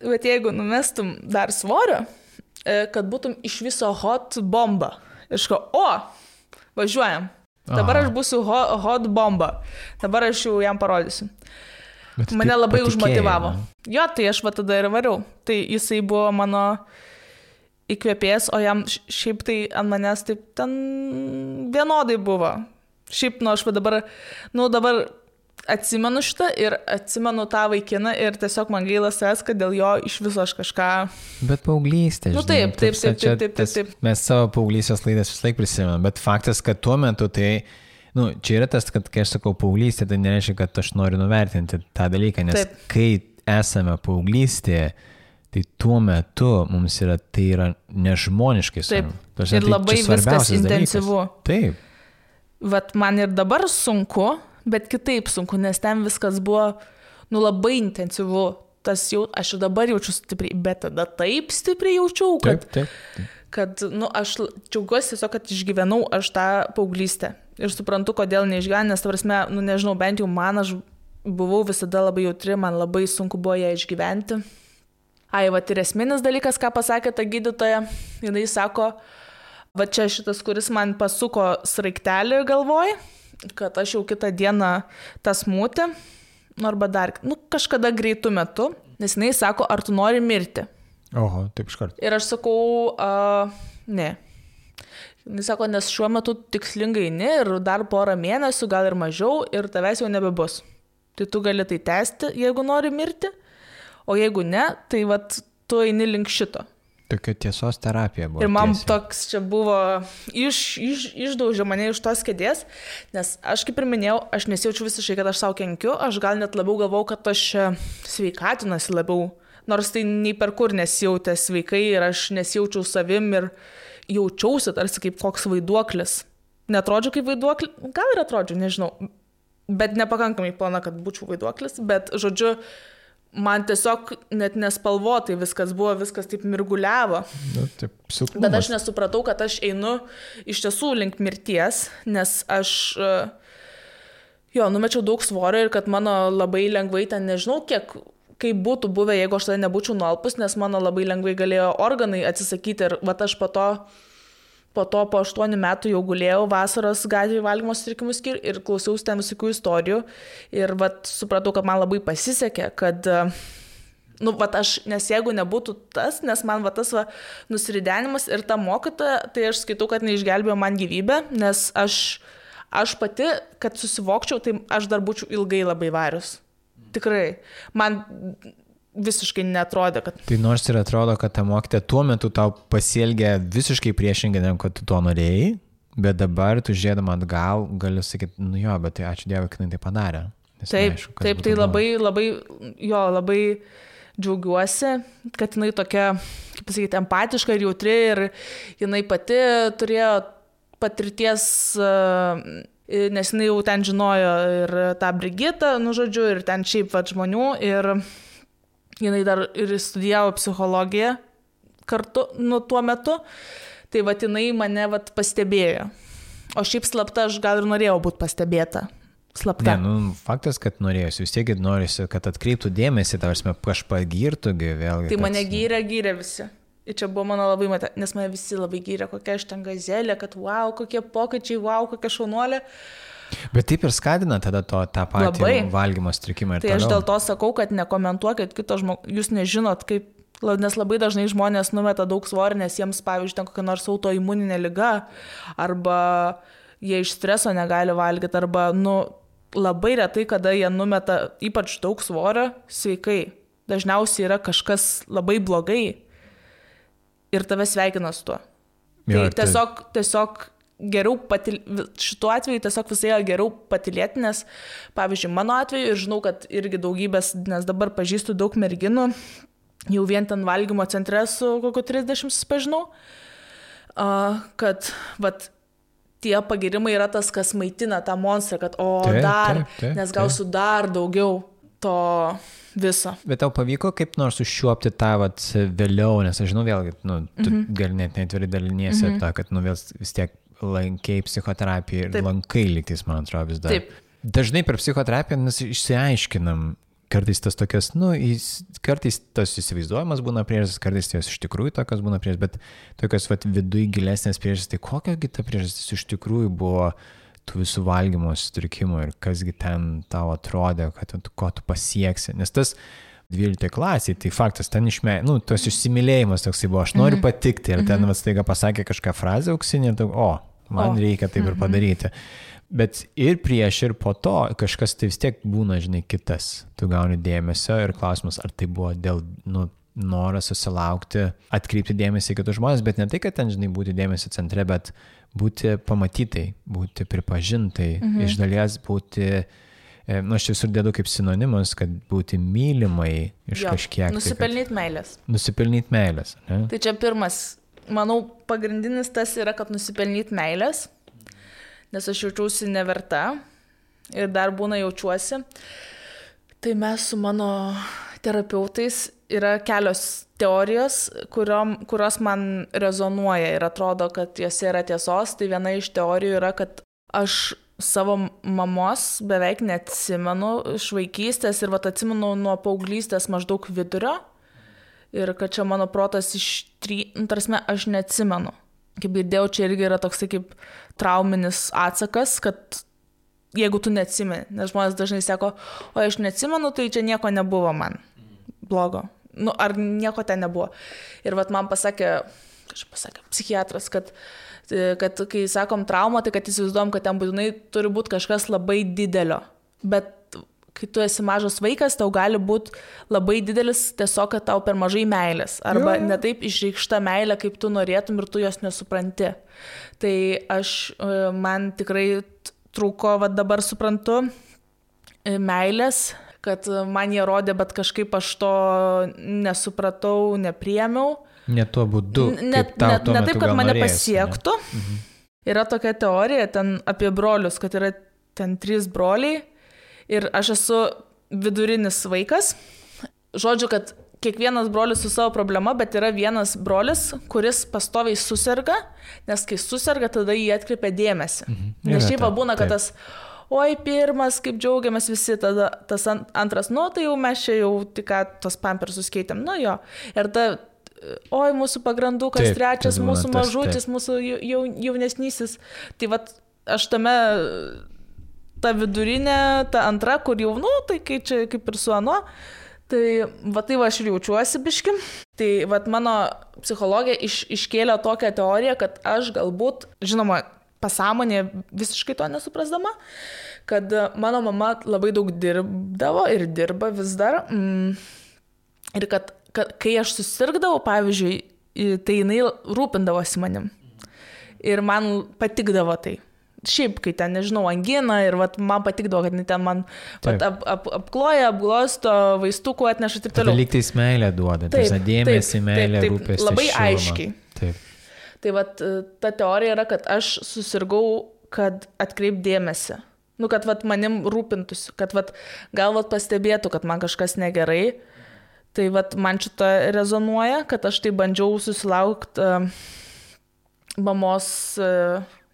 bet jeigu numestum dar svorio, kad būtum iš viso hot bomba. Ir aš važiuojam. Dabar aš būsiu hot bomba. Dabar aš jau jam parodysiu. Bet mane labai užmotyvavo. Jo, tai aš tada ir variau. Tai jisai buvo mano įkvėpėjas, o jam šiaip tai ant manęs taip ten vienodai buvo. Šiaip, aš dabar atsimenu šitą ir atsimenu tą vaikiną ir tiesiog man gaila savęs, kad dėl jo iš viso aš kažką... Bet paauglystė, žinai. Taip. Mes savo paauglystės laidas vis laik prisimenam, bet faktas, kad tuo metu tai... čia yra tas, kad kai aš sakau paauglystė, tai nereiškia, kad aš noriu nuvertinti tą dalyką, nes kai esame paauglystėje, tai tuo metu mums tai yra nežmoniškai svarbu. Taip, ir labai viskas intensyvu. Taip. Vat man ir dabar sunku, bet kitaip sunku, nes ten viskas buvo, labai intensyvu. Aš ir dabar jaučiu stipriai, bet tada taip stipriai jaučiau, kad, kad aš džiaugiuosi tiesiog, kad išgyvenau aš tą paauglystę. Ir suprantu, kodėl neišgyvenau, nes, prasme, nežinau, bent jau aš buvau visada labai jautri, man labai sunku buvo ją išgyventi. Ir esminis dalykas, ką pasakė ta gydytoja, jinai sako, čia šitas, kuris man pasuko sraigtelį galvoj, kad aš jau kitą dieną tas smūtį, arba dar, kažkada greitų metu, nes jinai sako, ar tu nori mirti. Oho, taip iškart. Ir aš sakau, ne. Jis sako, nes šiuo metu tikslingai ne ir dar porą mėnesių, gal ir mažiau, ir tavęs jau nebebus. Tai tu gali tai tęsti, jeigu nori mirti, o jeigu ne, tai tu eini link šito. Tokia tiesos terapija buvo. Ir man toks čia buvo, išdaužė mane iš tos kėdės, nes aš kaip ir minėjau, aš nesijaučiu visiškai, kad aš savo kenkiu, aš gal net labiau galvau, kad aš sveikatinuosi labiau, nors tai nei per kur nesijautė sveikai ir aš nesijaučiau savim ir jaučiausi tarsi kaip koks vaiduoklis. Netrodžiu kaip vaiduoklis, gal ir atrodžiu, nežinau, bet nepakankamai plana, kad būčiau vaiduoklis, bet žodžiu, man tiesiog net nespalvotai viskas buvo, viskas taip mirguliavo. Taip, silpnumas. Bet aš nesupratau, kad aš einu iš tiesų link mirties, nes aš numečiau daug svorio ir kad mano labai lengvai ten, nežinau, kaip būtų buvę, jeigu aš tada nebūčiau nualpus, nes mano labai lengvai galėjo organai atsisakyti ir aš po 8 metų jau gulėjau vasaros gatvėje valgymo sutrikimų skyriuje ir klausiausi ten visokių istorijų ir supratau, kad man labai pasisekė, kad nes jeigu nebūtų tas, nes man tas nusiridenimas ir ta mokytoja, tai aš skaitau, kad neišgelbėjo man gyvybę, nes aš pati, kad susivokčiau, tai aš dar būčiau ilgai labai varius. Tikrai. Man visiškai netrodė, kad... Tai nors ir atrodo, kad ta mokytoja tuo metu tau pasielgė visiškai priešingai, negu kad tu to norėjai, bet dabar tu žiūrėdama atgal gali sakyti, nu jo, bet tai ačiū Dievui, kad jinai tai padarė. Taip, neaišku, taip, tai labai džiaugiuosi, kad jinai tokia, kaip pasakyti, empatiška ir jautri ir jinai pati turėjo patirties, nes jinai jau ten žinojo ir tą Brigitą, nu žodžiu, ir ten šiaip žmonių ir jinai dar ir studijavo psichologiją kartu, nu tuo metu, tai jinai mane pastebėjo. O šiaip slapta aš gal ir norėjau būti pastebėta. Slapta. Ne, faktas, kad norėjusi, vis tiek norėjusi, kad atkreiptų dėmesį, tavarsime, kažką girtų, vėlgi. Tai mane gyrė visi. Ir čia buvo mano labai nes mane visi labai gyrė, kokia aš ten gazelė, kad wow, kokie pokyčiai, wow, kokia šaunuolė. Bet taip ir skatina tada tą patį valgymo sutrikimą ir tai toliau. Aš dėl to sakau, kad nekomentuokit kito žmogaus, jūs nežinot, kaip, nes labai dažnai žmonės numeta daug svorį, nes jiems, pavyzdžiui, ten kokia nors autoimuninė liga, arba jie iš streso negali valgyti, arba, labai retai, kada jie numeta ypač daug svorio sveikai. Dažniausiai yra kažkas labai blogai ir tave sveikina su tuo. Jo, tai tiesiog geriau šituo atveju tiesiog visai geriau patylėti, nes, pavyzdžiui, mano atveju, ir žinau, kad irgi daugybės, nes dabar pažįstu daug merginų, jau vien ten valgymo centre su kokiu 30 susipažinau, kad, tie pagirimai yra tas, kas maitina tą monstrą, kad taip, nes gausiu dar daugiau to viso. Bet tau pavyko kaip nors užšiuopti tą vėliau, nes aš žinau vėlgi, tu gali net netveri daliniesi apie tą, kad vis tiek lankiai psichoterapiją ir lankai lygtais, man atrodo, vis dar. Taip. Dažnai per psichoterapiją mes išsiaiškinam, kartais tas tokias, kartais tas įsivaizduojamas būna priežastis, kartais jos iš tikrųjų tokios būna priežastis, bet tokios viduj gilesnės priežastis, tai kokiagi ta priežastis iš tikrųjų buvo tų visų valgymo sutrikimų ir kasgi ten tau atrodė, kad ko tu pasieksi. Nes tas 12 klasiai, tai faktas, ten tos išsimylėjimas toksai buvo, aš noriu patikti ir ten staiga pasakė kažką frazę auksinį ir man reikia taip ir padaryti. Bet ir prieš ir po to kažkas tai vis tiek būna, kitas. Tu gauni dėmesio ir klausimas, ar tai buvo dėl noras susilaukti, atkreipti dėmesį į kitus žmonės, bet ne tai, kad ten, būti dėmesio centre, bet būti pamatytai, būti pripažintai, iš dalies būti, aš visur dėdu kaip sinonimus, kad būti mylimai iš kažkiek. Nusipelnyti meilės. Nusipelnyti meilės. Ne? Tai čia pirmas, manau, pagrindinis tas yra, kad nusipelnyti meilės, nes aš jaučiausi neverta ir dar būna jaučiuosi. Tai mes su mano terapeutais yra kelios teorijos, kurios man rezonuoja ir atrodo, kad jose yra tiesos. Tai viena iš teorijų yra, kad aš savo mamos beveik neatsimenu iš vaikystės ir atsimenu nuo paauglystės maždaug vidurio ir kad čia mano protas tarsi aš neatsimenu. Kaip girdėjau, čia irgi yra toksai kaip trauminis atsakas, kad jeigu tu neatsimeni, nes žmonės dažnai sako, o aš neatsimenu, tai čia nieko nebuvo man blogo. Ar nieko ten nebuvo. Ir man pasakė psichiatras, kad kai sakom traumą, tai kad įsivaizduojam, kad ten būtinai turi būti kažkas labai didelio. Bet kai tu esi mažas vaikas, tau gali būti labai didelis tiesiog, kad tau per mažai meilės. Arba netaip išreikšta meilė, kaip tu norėtum ir tu jos nesupranti. Tai man tikrai trūko, dabar suprantu, meilės, kad man jie rodė, bet kažkaip aš to nesupratau, nepriėmiau. Ne tuo būdu, ne taip, kad mane pasiektų. Yra tokia teorija ten apie brolius, kad yra ten 3 broliai ir aš esu vidurinis vaikas. Žodžiu, kad kiekvienas brolis su savo problema, bet yra vienas brolis, kuris pastoviai suserga, nes kai suserga, tada jį atkreipia dėmesį. Nes šiaip būna, kad tas oi, pirmas, kaip džiaugiamės visi, tada tas antras, tai jau mes čia jau tik tos pampersus keitėm, ir oi, mūsų pagrandukas, trečias, mūsų mažutis, mūsų jaunesnysis. Tai aš tame, ta vidurinė, ta antra, kur jau, tai kai čia kaip ir su ano, tai aš ir jaučiuosi biški. Tai mano psichologija iškėlė tokią teoriją, kad aš galbūt, žinoma, pasąmonė visiškai to nesuprasdama, kad mano mama labai daug dirbdavo ir dirba vis dar, Ir kad kai aš susirgdavau, pavyzdžiui, tai jinai rūpindavosi manim. Ir man patikdavo tai. Šiaip, kai ten, nežinau, angina ir vat, man patikdavo, kad ten man apkloja, apglosto, vaistukų atneša ir taip toliau. Lygtais meilę duoda, dėmesį, meilę, rūpestį. Labai šilumą. Aiškiai. Taip. Tai vat, ta teorija yra, kad aš susirgau, kad atkreip dėmesį. Nu, kad vat, manim rūpintųsi, kad vat, gal vat, pastebėtų, kad man kažkas negerai. Tai vat, man šitą rezonuoja, kad aš tai bandžiau susilaukti mamos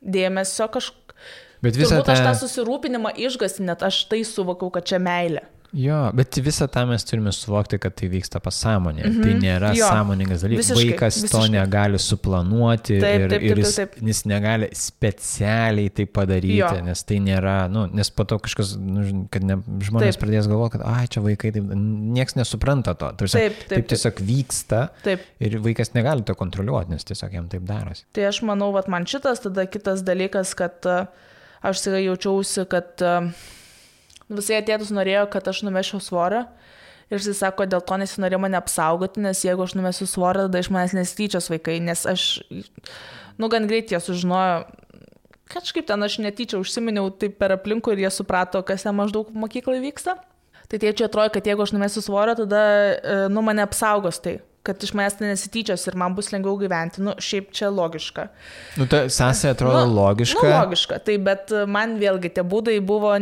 dėmesio kažkaip. Bet visą Turbūt aš tą susirūpinimą išgąsti, net aš tai suvokau, kad čia meilė. Jo, bet visą tą mes turime suvokti, kad tai vyksta pasąmonėje. Tai nėra sąmoningas dalykas. Vaikas to negali suplanuoti ir jis negali specialiai tai padaryti, nes tai nėra, nes po to kažkas, kad žmonės pradės galvoti, kad čia vaikai, nieks nesupranta to. Taip tiesiog vyksta ir vaikas negali to kontroliuoti, nes tiesiog jam taip darosi. Tai aš manau, vat man šitas, tada kitas dalykas, kad aš tikrai jaučiausi, kad visai tėtis norėjo, kad aš numešiau svorio ir jis sako, dėl to nesinorėjo mane apsaugoti, nes jeigu aš numesiu svorio, tada iš manęs nesityčios vaikai, nes aš, gan greit jie sužinojo, kažkaip ten aš netyčia užsiminiau taip per aplinkų ir jie suprato, kas ten maždaug mokyklai vyksta. Tai tėčiui atrodo, kad jeigu aš numesiu svorio, tada mane apsaugos tai, kad iš manęs nesityčios ir man bus lengviau gyventi. Šiaip čia logiška. Ta sąsaja atrodo logiška. Logiška, tai bet man vėlgi tie būdai buvo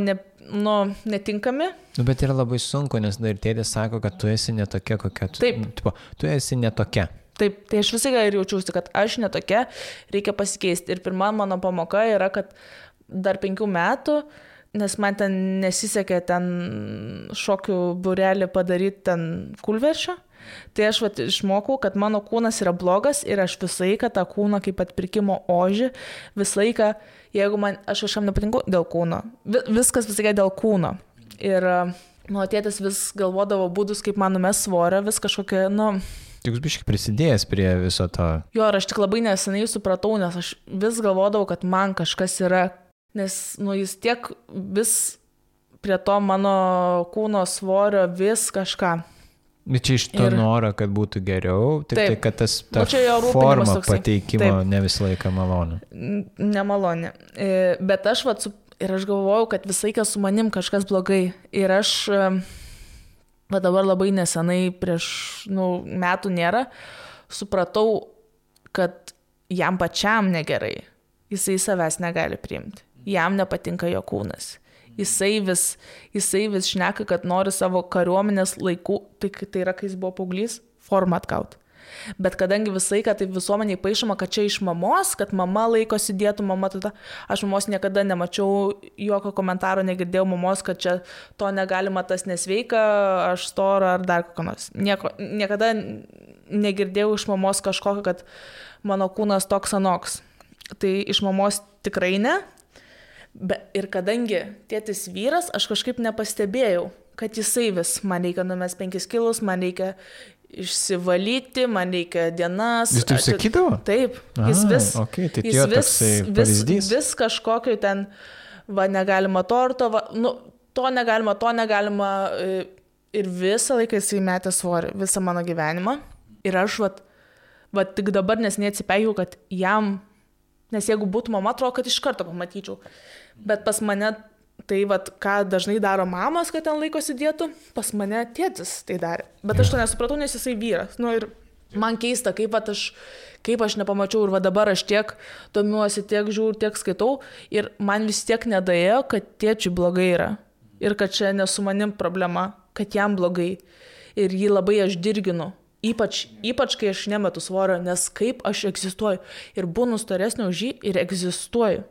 netinkami. Bet yra labai sunku, nes dar tėtis sako, kad tu esi netokia, kokia tu. Taip. Tu esi netokia. Taip, tai aš visai ir jaučiausi, kad aš netokia, reikia pasikeisti. Ir pirma mano pamoka yra, kad dar 5 metų, nes man ten nesisekė ten šokių būrelį padaryti ten kūlveršio, tai aš išmokau, kad mano kūnas yra blogas ir aš visą laiką tą kūną kaip atpirkimo ožį, visą laiką, jeigu aš kažkam nepatinku dėl kūno, viskas visą laiką dėl kūno. Ir mano tėtis vis galvodavo būdus, kaip man numes svorio, vis kažkokia, Tik biškai prisidėjęs prie viso to. Jo, ir aš tik labai nesenai supratau, nes aš vis galvodavau, kad man kažkas yra, nes, jis tiek vis prie to mano kūno svorio vis kažką. Bet čia iš to noro, kad būtų geriau, tik kad ta forma pateikimo ne visą laiką maloni. Nemaloni. Bet aš galvojau, kad visą laiką su manim kažkas blogai. Ir aš dabar labai nesenai, prieš metų nėra, supratau, kad jam pačiam negerai. Jisai savęs negali priimti. Jam nepatinka jo kūnas. Jisai vis šneka, kad nori savo kariuomenės laikų, tai yra, kai jis buvo paauglys, formą atgauti. Bet kadangi visai, kad taip visuomeniai paišoma, kad čia iš mamos, kad mama laikosi dietų, aš mamos niekada nemačiau, jokio komentaro negirdėjau mamos, kad čia to negalima, tas nesveika, aš stora ar dar kokio nors. Niekada negirdėjau iš mamos kažkokio, kad mano kūnas toks anoks. Tai iš mamos tikrai ne. Ir kadangi tėtis vyras, aš kažkaip nepastebėjau, kad jisai vis, man reikia numest 5 kilus, man reikia išsivalyti, man reikia dienas. Jis taip sakydavo? Taip, jis vis kažkokio ten, negalima torto, to negalima ir visą laiką jisai metė svorį, visą mano gyvenimą. Ir aš tik dabar neatsipeikiau, kad jam, nes jeigu būtų mama, atrodo, kad iš karto pamatyčiau. Bet pas mane tai, ką dažnai daro mamos, kad ten laikosi dietų, pas mane tėtis tai darė. Bet aš to nesupratau, nes jisai vyras. Ir man keista, kaip aš nepamačiau ir dabar aš tiek domiuosi, tiek žiūriu, tiek skaitau ir man vis tiek nedaėjo, kad tėčiui blogai yra. Ir kad čia ne su manim problema, kad jam blogai. Ir jį labai aš dirginu. Ypač kai aš nemetu svorio, nes kaip aš egzistuoju. Ir būnu storesnė už jį ir egzistuoju.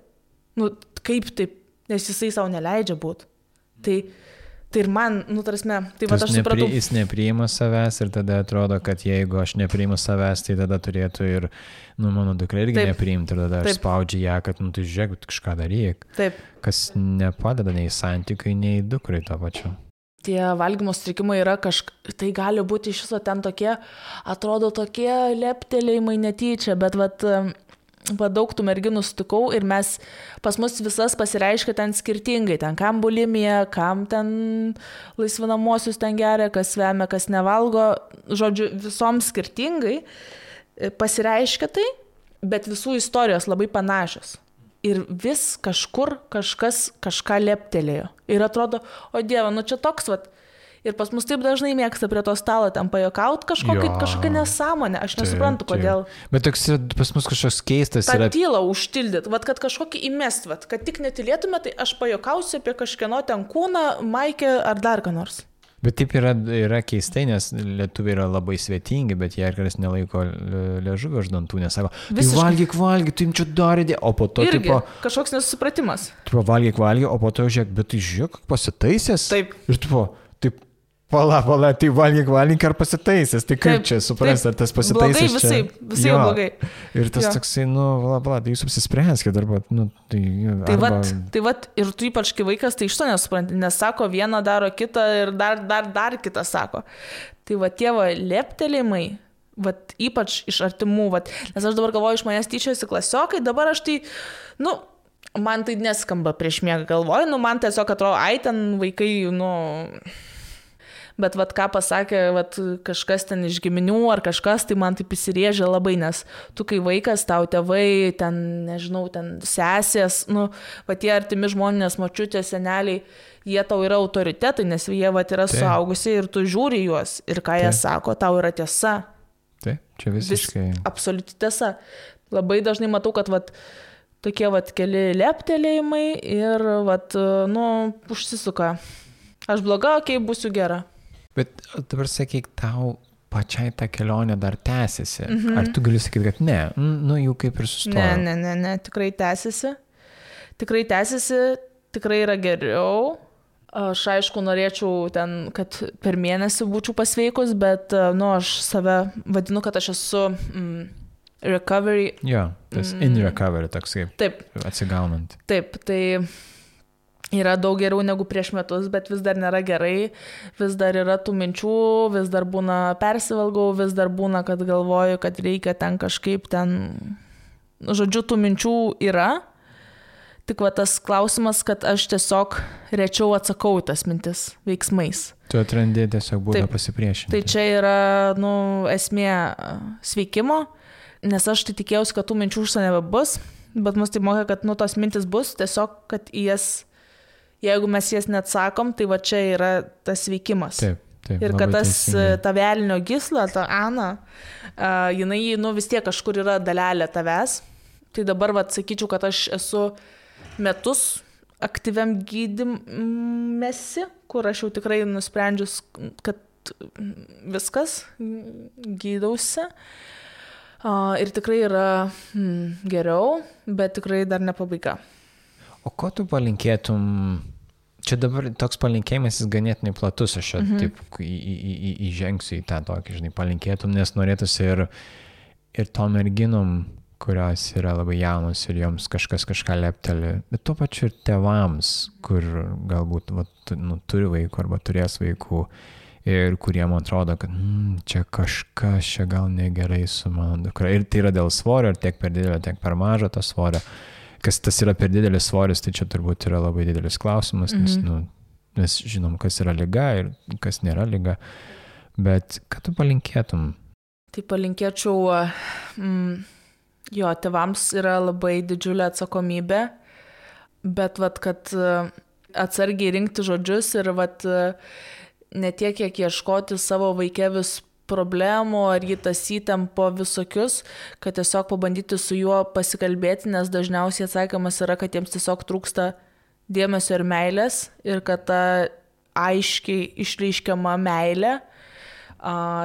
Kaip taip, nes jisai savo neleidžia būti. Tai ir man, tai aš supratau. Jis nepriima savęs ir tada atrodo, kad jeigu aš nepriimu savęs, tai tada turėtų ir, mano dukra irgi nepriimti ir tada aš spaudžiu ją, kad, tu žiūrėk, kažką daryk. Taip. Kas nepadeda nei santykiui, nei dukrai to pačiu. Tie valgymo sutrikimai yra tai gali būti iš viso ten tokie, atrodo tokie leptelėjimai netyčia, bet daug tų merginų sutikau ir pas mus visas pasireiškia ten skirtingai, ten kam bulimija, kam ten laisvinamosius ten geria, kas vemia, kas nevalgo, žodžiu, visoms skirtingai pasireiškia tai, bet visų istorijos labai panašios. Ir vis kažkur kažkas kažką leptelėjo. Ir atrodo, o Dieve, nu čia toks, vat. Ir pas mus taip dažnai mėgsta prie to stalo ten pajuokaut kažkokią nesąmonę. Aš nesuprantu, kodėl. Bet toks pas mus kažkoks keistas yra. Ta tylą užtildyt, vat, kad kažkokį įmest, vat, kad tik netylėtume, tai aš pajuokausiu apie kažkieno ten kūną, maikę ar dar ką nors. Bet taip yra keistai, nes lietuviai yra labai svetingi, bet jie kartais nelaiko liežuvio už dantų, nesako, tai valgyk, tai jums čia darydė, o po to irgi, kažkoks nesusipratimas. Tipo, valgyk, o po to žiūrėk, bet tai žiūrėk, pasitaisęs. Taip. Ir tipo, taip, pala, tai valgyk ar pasitaisęs, tai kaip čia suprasti, ar tas pasitaisęs blogai, visai blogai. Ir tas toksai, tai jūs apsispręskite, arba, Tai vat, ir tu ypač kai vaikas, tai iš to nesupranti, nes sako, vieną daro kitą ir dar kitą sako. Tai va tie leptelėjimai, vat ypač iš artimų, nes aš dabar galvoju, iš manęs tyčiasi klasiokai, dabar aš tai, man tai neskamba prieš miegą galvoju, man tiesiog atrodo, ten vaikai, Bet vat ką pasakė kažkas ten iš giminių ar kažkas, tai man taip įsirėžė labai, nes tu kai vaikas, tau tėvai, ten, nežinau, ten sesės, tie artimi žmonės, močiutės, seneliai, jie tau yra autoritetai, nes jie yra suaugusiai ir tu žiūri juos ir ką jie sako, tau yra tiesa. Taip, čia visiškai. Absoliuti tiesa. Labai dažnai matau, kad tokie keli leptelėjimai ir užsisuka. Aš bloga, būsiu gera. Bet dabar sakyk, tau pačiai ta kelionė dar tęsiasi. Ar tu gali sakyti, kad ne? Jau kaip ir sustojo. Ne, tikrai tęsiasi. Tikrai yra geriau. Aš aišku norėčiau ten, kad per mėnesį būčiau pasveikus, bet aš save vadinu, kad aš esu recovery. Jo, tas in recovery toks kaip. Taip. Atsigaunant. Taip, tai yra daug geriau negu prieš metus, bet vis dar nėra gerai, vis dar yra tų minčių, vis dar būna persivalgau, vis dar būna, kad galvoju, kad reikia ten kažkaip žodžiu, tų minčių yra, tik tas klausimas, kad aš tiesiog rečiau atsakau tas mintis veiksmais. Tu atrandi tiesiog būdą pasipriešinti. Tai čia yra, esmė sveikimo, nes aš tai tikėjausi, kad tų minčių užsienio nebebus, bet mus tai mokė, kad tos mintis bus, tiesiog, kad jeigu mes jas neatsakom, tai čia yra tas veikimas. Taip, ir kad ta velnio gysla, ta Ana, jinai vis tiek kažkur yra dalelė tavęs. Tai dabar sakyčiau, kad aš esu metus aktyviam gydymesi, kur aš jau tikrai nusprendžius, kad viskas, gydausi. Ir tikrai yra geriau, bet tikrai dar ne pabaiga. O ko tu palinkėtum? Čia dabar toks palinkėjimas jis ganėtinai platus, aš taip įžengsiu į tą tokį, palinkėtum, nes norėtųsi ir tom merginom, kurios yra labai jaunos ir joms kažką lepteli, bet tuo pačiu ir tėvams, kur galbūt turi vaikų arba turės vaikų ir kuriem atrodo, kad čia kažkas čia gal negerai su mano dukra. Ir tai yra dėl svorio, ir tiek per didelio, tiek per mažo to svorio. Kas tas yra per didelis svoris, tai čia turbūt yra labai didelis klausimas, nes mes žinom, kas yra liga ir kas nėra liga. Bet ką tu palinkėtum? Tai palinkėčiau, tėvams yra labai didžiulė atsakomybė, bet kad atsargiai rinkti žodžius ir ne tiek, kiek ieškoti savo vaike vis problemų ar jį tasyti po visokius, kad tiesiog pabandyti su juo pasikalbėti, nes dažniausiai atsakymas yra, kad jiems tiesiog trūksta dėmesio ir meilės ir kad ta aiškiai išreiškiama meilė,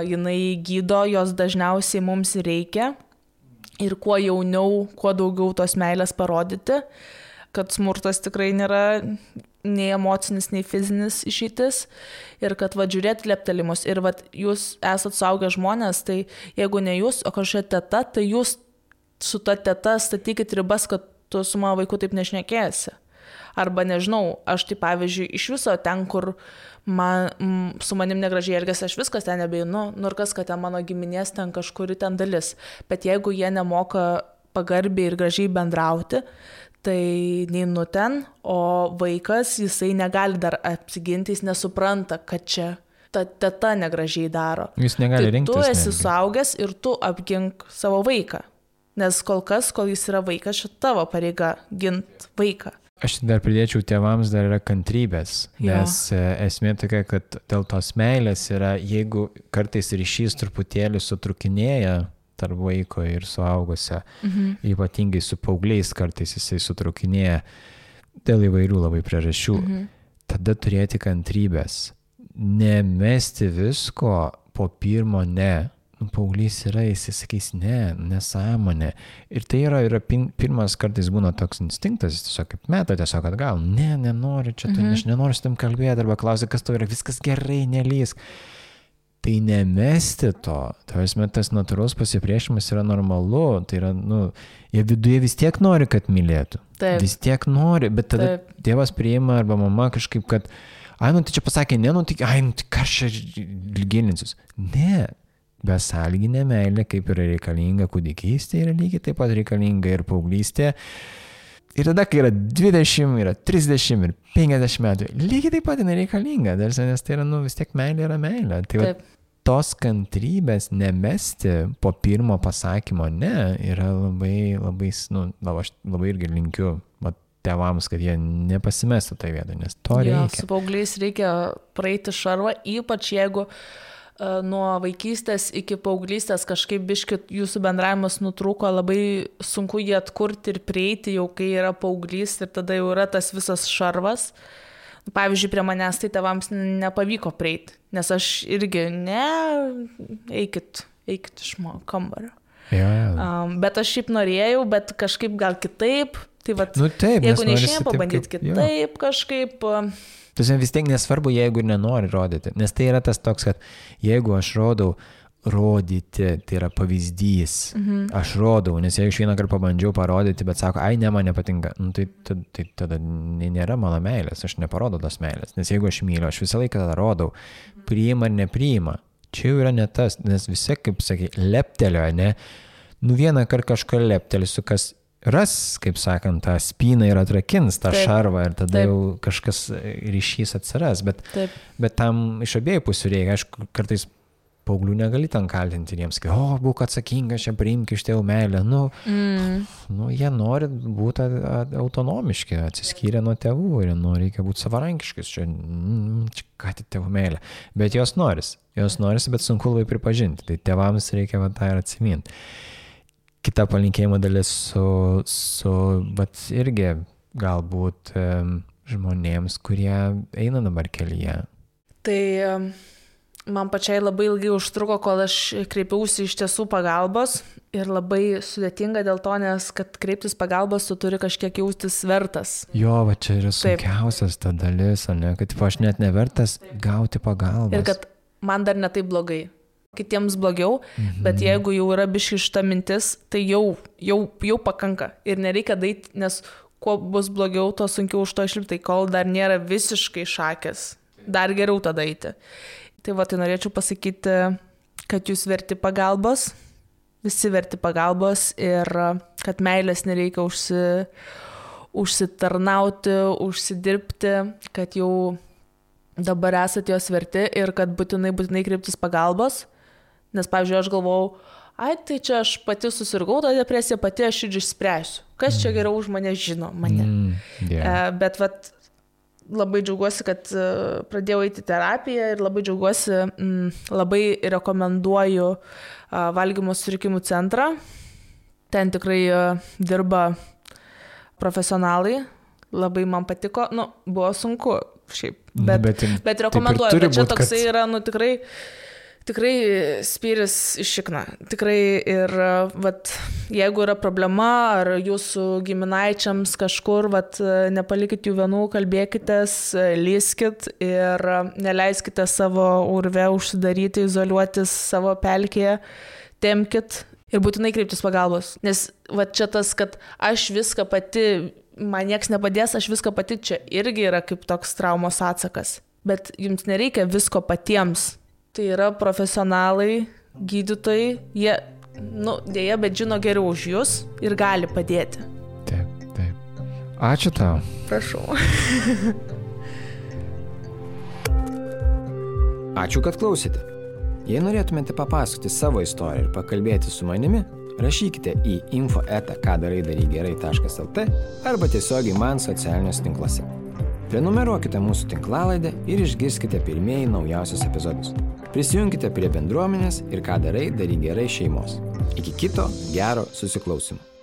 jinai gydo, jos dažniausiai mums reikia ir kuo jauniau, kuo daugiau tos meilės parodyti, kad smurtas tikrai nėra nei emocinis, nei fizinis išeitis ir kad žiūrėti leptelimus ir jūs esat suaugę žmonės, tai jeigu ne jūs, o kažkokia teta, tai jūs su ta teta statykit ribas, kad tu su mano vaiku taip nešnekėsi. Arba nežinau, aš tai pavyzdžiui iš viso ten, kur su manim negražiai elgėsi, aš viskas ten nebeinu, ir kas, kad ten mano giminės ten kažkuri ten dalis. Bet jeigu jie nemoka pagarbiai ir gražiai bendrauti, tai neinu ten, o vaikas, jisai negali dar apsiginti, jis nesupranta, kad čia ta teta negražiai daro. Jis negali rinktis. Tu esi suaugęs ir tu apgink savo vaiką. Nes kol jis yra vaikas, šia tavo pareiga gint vaiką. Aš dar pridėčiau, tėvams dar yra kantrybės, nes esmė tokia, kad dėl tos meilės yra, jeigu kartais ryšys truputėlį sutrukinėja tarp vaiko ir suaugusio, ypatingai su paaugliais kartais jisai sutrukinėja dėl įvairių labai priežasčių, tada turėti kantrybės. Nemesti visko po pirmo ne. Paauglys yra, jis sakys ne, nesąmonė. Ir tai yra pirmas kartais būna toks instinktas, jis tiesiog kaip meta, tiesiog atgal, nenoriu čia, aš nenoriu su tam kalbėti, arba klausia, kas tau yra, viskas gerai, nelysk. Tai nemesti to, tas natūralus pasipriešimas yra normalu, tai yra, jie viduje vis tiek nori, kad mylėtų. Taip. Vis tiek nori, bet tada tėvas priima arba mama kažkaip, kad tai čia pasakė, tai ką aš gilinsiuos. Ne, besąlyginė meilė, kaip yra reikalinga kūdikystė, yra lygiai taip pat reikalinga ir paauglystė. Ir tada, kai yra 20, yra 30 ir 50 metų, lygiai taip pat yra reikalinga, nes tai yra, vis tiek meilė yra meilė. Tai tos kantrybės nemesti po pirmo pasakymo ne, yra labai, labai, aš labai irgi linkiu tėvams, kad jie nepasimestų tai vietą, nes to reikia. Su paaugliais reikia praeiti šarvą, ypač jeigu nuo vaikystės iki paauglystės kažkaip biškį jūsų bendravimas nutrūko, labai sunku jį atkurti ir prieiti jau, kai yra paauglys ir tada jau yra tas visas šarvas. Pavyzdžiui, prie manęs tai tėvams nepavyko prieiti, nes aš irgi eikit iš mano kambario. Bet aš šiaip norėjau, bet kažkaip gal kitaip. Tai taip, jeigu neišėjom pabandyti kitaip kažkaip. Tai vis tiek nesvarbu, jeigu ir nenori rodyti, nes tai yra tas toks, kad jeigu aš rodau, rodyti, tai yra pavyzdys, aš rodau, nes jeigu aš vieną kartą pabandžiau parodyti, bet sako, ne, man nepatinka, tai tada nėra mano meilės, aš neparodau tos meilės, nes jeigu aš myliu, aš visą laiką tada rodau, priima ar nepriima, čia jau yra ne tas, nes visi, kaip sakai, leptelio, ne, vieną kartą kažką leptelisiu, kas ras, kaip sakant, tą spyną ir atrakins tą šarvą ir tada jau kažkas ryšys atsiras, bet tam iš abiejų pusių reikia, aišku, kartais paauglių negali ten kaltinti jiems, būk atsakingas, čia priimk iš tėvų meilę, jie nori būti autonomiški, atsiskyrę nuo tėvų ir reikia būti savarankiškis, čia ką tik tėvų meilė, bet jos norisi, bet sunku labai pripažinti, tai tėvams reikia tą ir atsiminti. Kita palinkėjimo dalis bet irgi galbūt žmonėms, kurie eina dabar kelyje. Tai man pačiai labai ilgai užtruko, kol aš kreipiausi iš tiesų pagalbos ir labai sudėtinga dėl to, nes kad kreiptis pagalbos, tu turi kažkiek jaustis vertas. Va čia yra sunkiausias ta dalis, kad aš net nevertas gauti pagalbos. Ir kad man dar ne taip blogai. Kitiems blogiau, bet jeigu jau yra biški šita mintis, tai jau pakanka ir nereikia daryti, nes kuo bus blogiau, to sunkiau už to išlipti, kol dar nėra visiškai šakės, dar geriau tada eiti. Tai tai norėčiau pasakyti, kad jūs verti pagalbos, visi verti pagalbos ir kad meilės nereikia užsitarnauti, užsidirbti, kad jau dabar esate jos verti ir kad būtinai kreiptis pagalbos. Nes, pavyzdžiui, aš galvojau, tai čia aš pati susirgau tą depresiją, pati aš ir išspręsiu. Kas čia geriau už mane žino mane. Bet labai džiaugiuosi, kad pradėjau eiti terapiją ir labai džiaugiuosi, labai rekomenduoju valgymo sutrikimų centrą. Ten tikrai dirba profesionalai. Labai man patiko, buvo sunku šiaip, bet rekomenduoju, bet čia toksai yra, tikrai spyris iš šikna. Tikrai ir jeigu yra problema ar jūsų giminaičiams kažkur, nepalikit jų vienų, kalbėkitės, lyskit ir neleiskite savo urve užsidaryti, izoliuotis savo pelkėje, tempkit ir būtinai kreiptis pagalbos. Nes čia tas, kad aš viską pati, man nieks nepadės, aš viską pati, čia irgi yra kaip toks traumos atsakas. Bet jums nereikia visko patiems. Tai yra profesionalai, gydytojai, jie dėja, bet žino geriau už jūs ir gali padėti. Taip. Ačiū tau. Prašau. Ačiū, kad klausėte. Jei norėtumėte papasakoti savo istoriją ir pakalbėti su manimi, rašykite į info@kadaraidarygerai.lt arba tiesiogiai man socialiniuose tinkluose. Prenumeruokite mūsų tinklalaidę ir išgirskite pirmieji naujausius epizodus. Prisijunkite prie bendruomenės ir Ką darai, daryk gerai šeimos. Iki kito gero susiklausymo.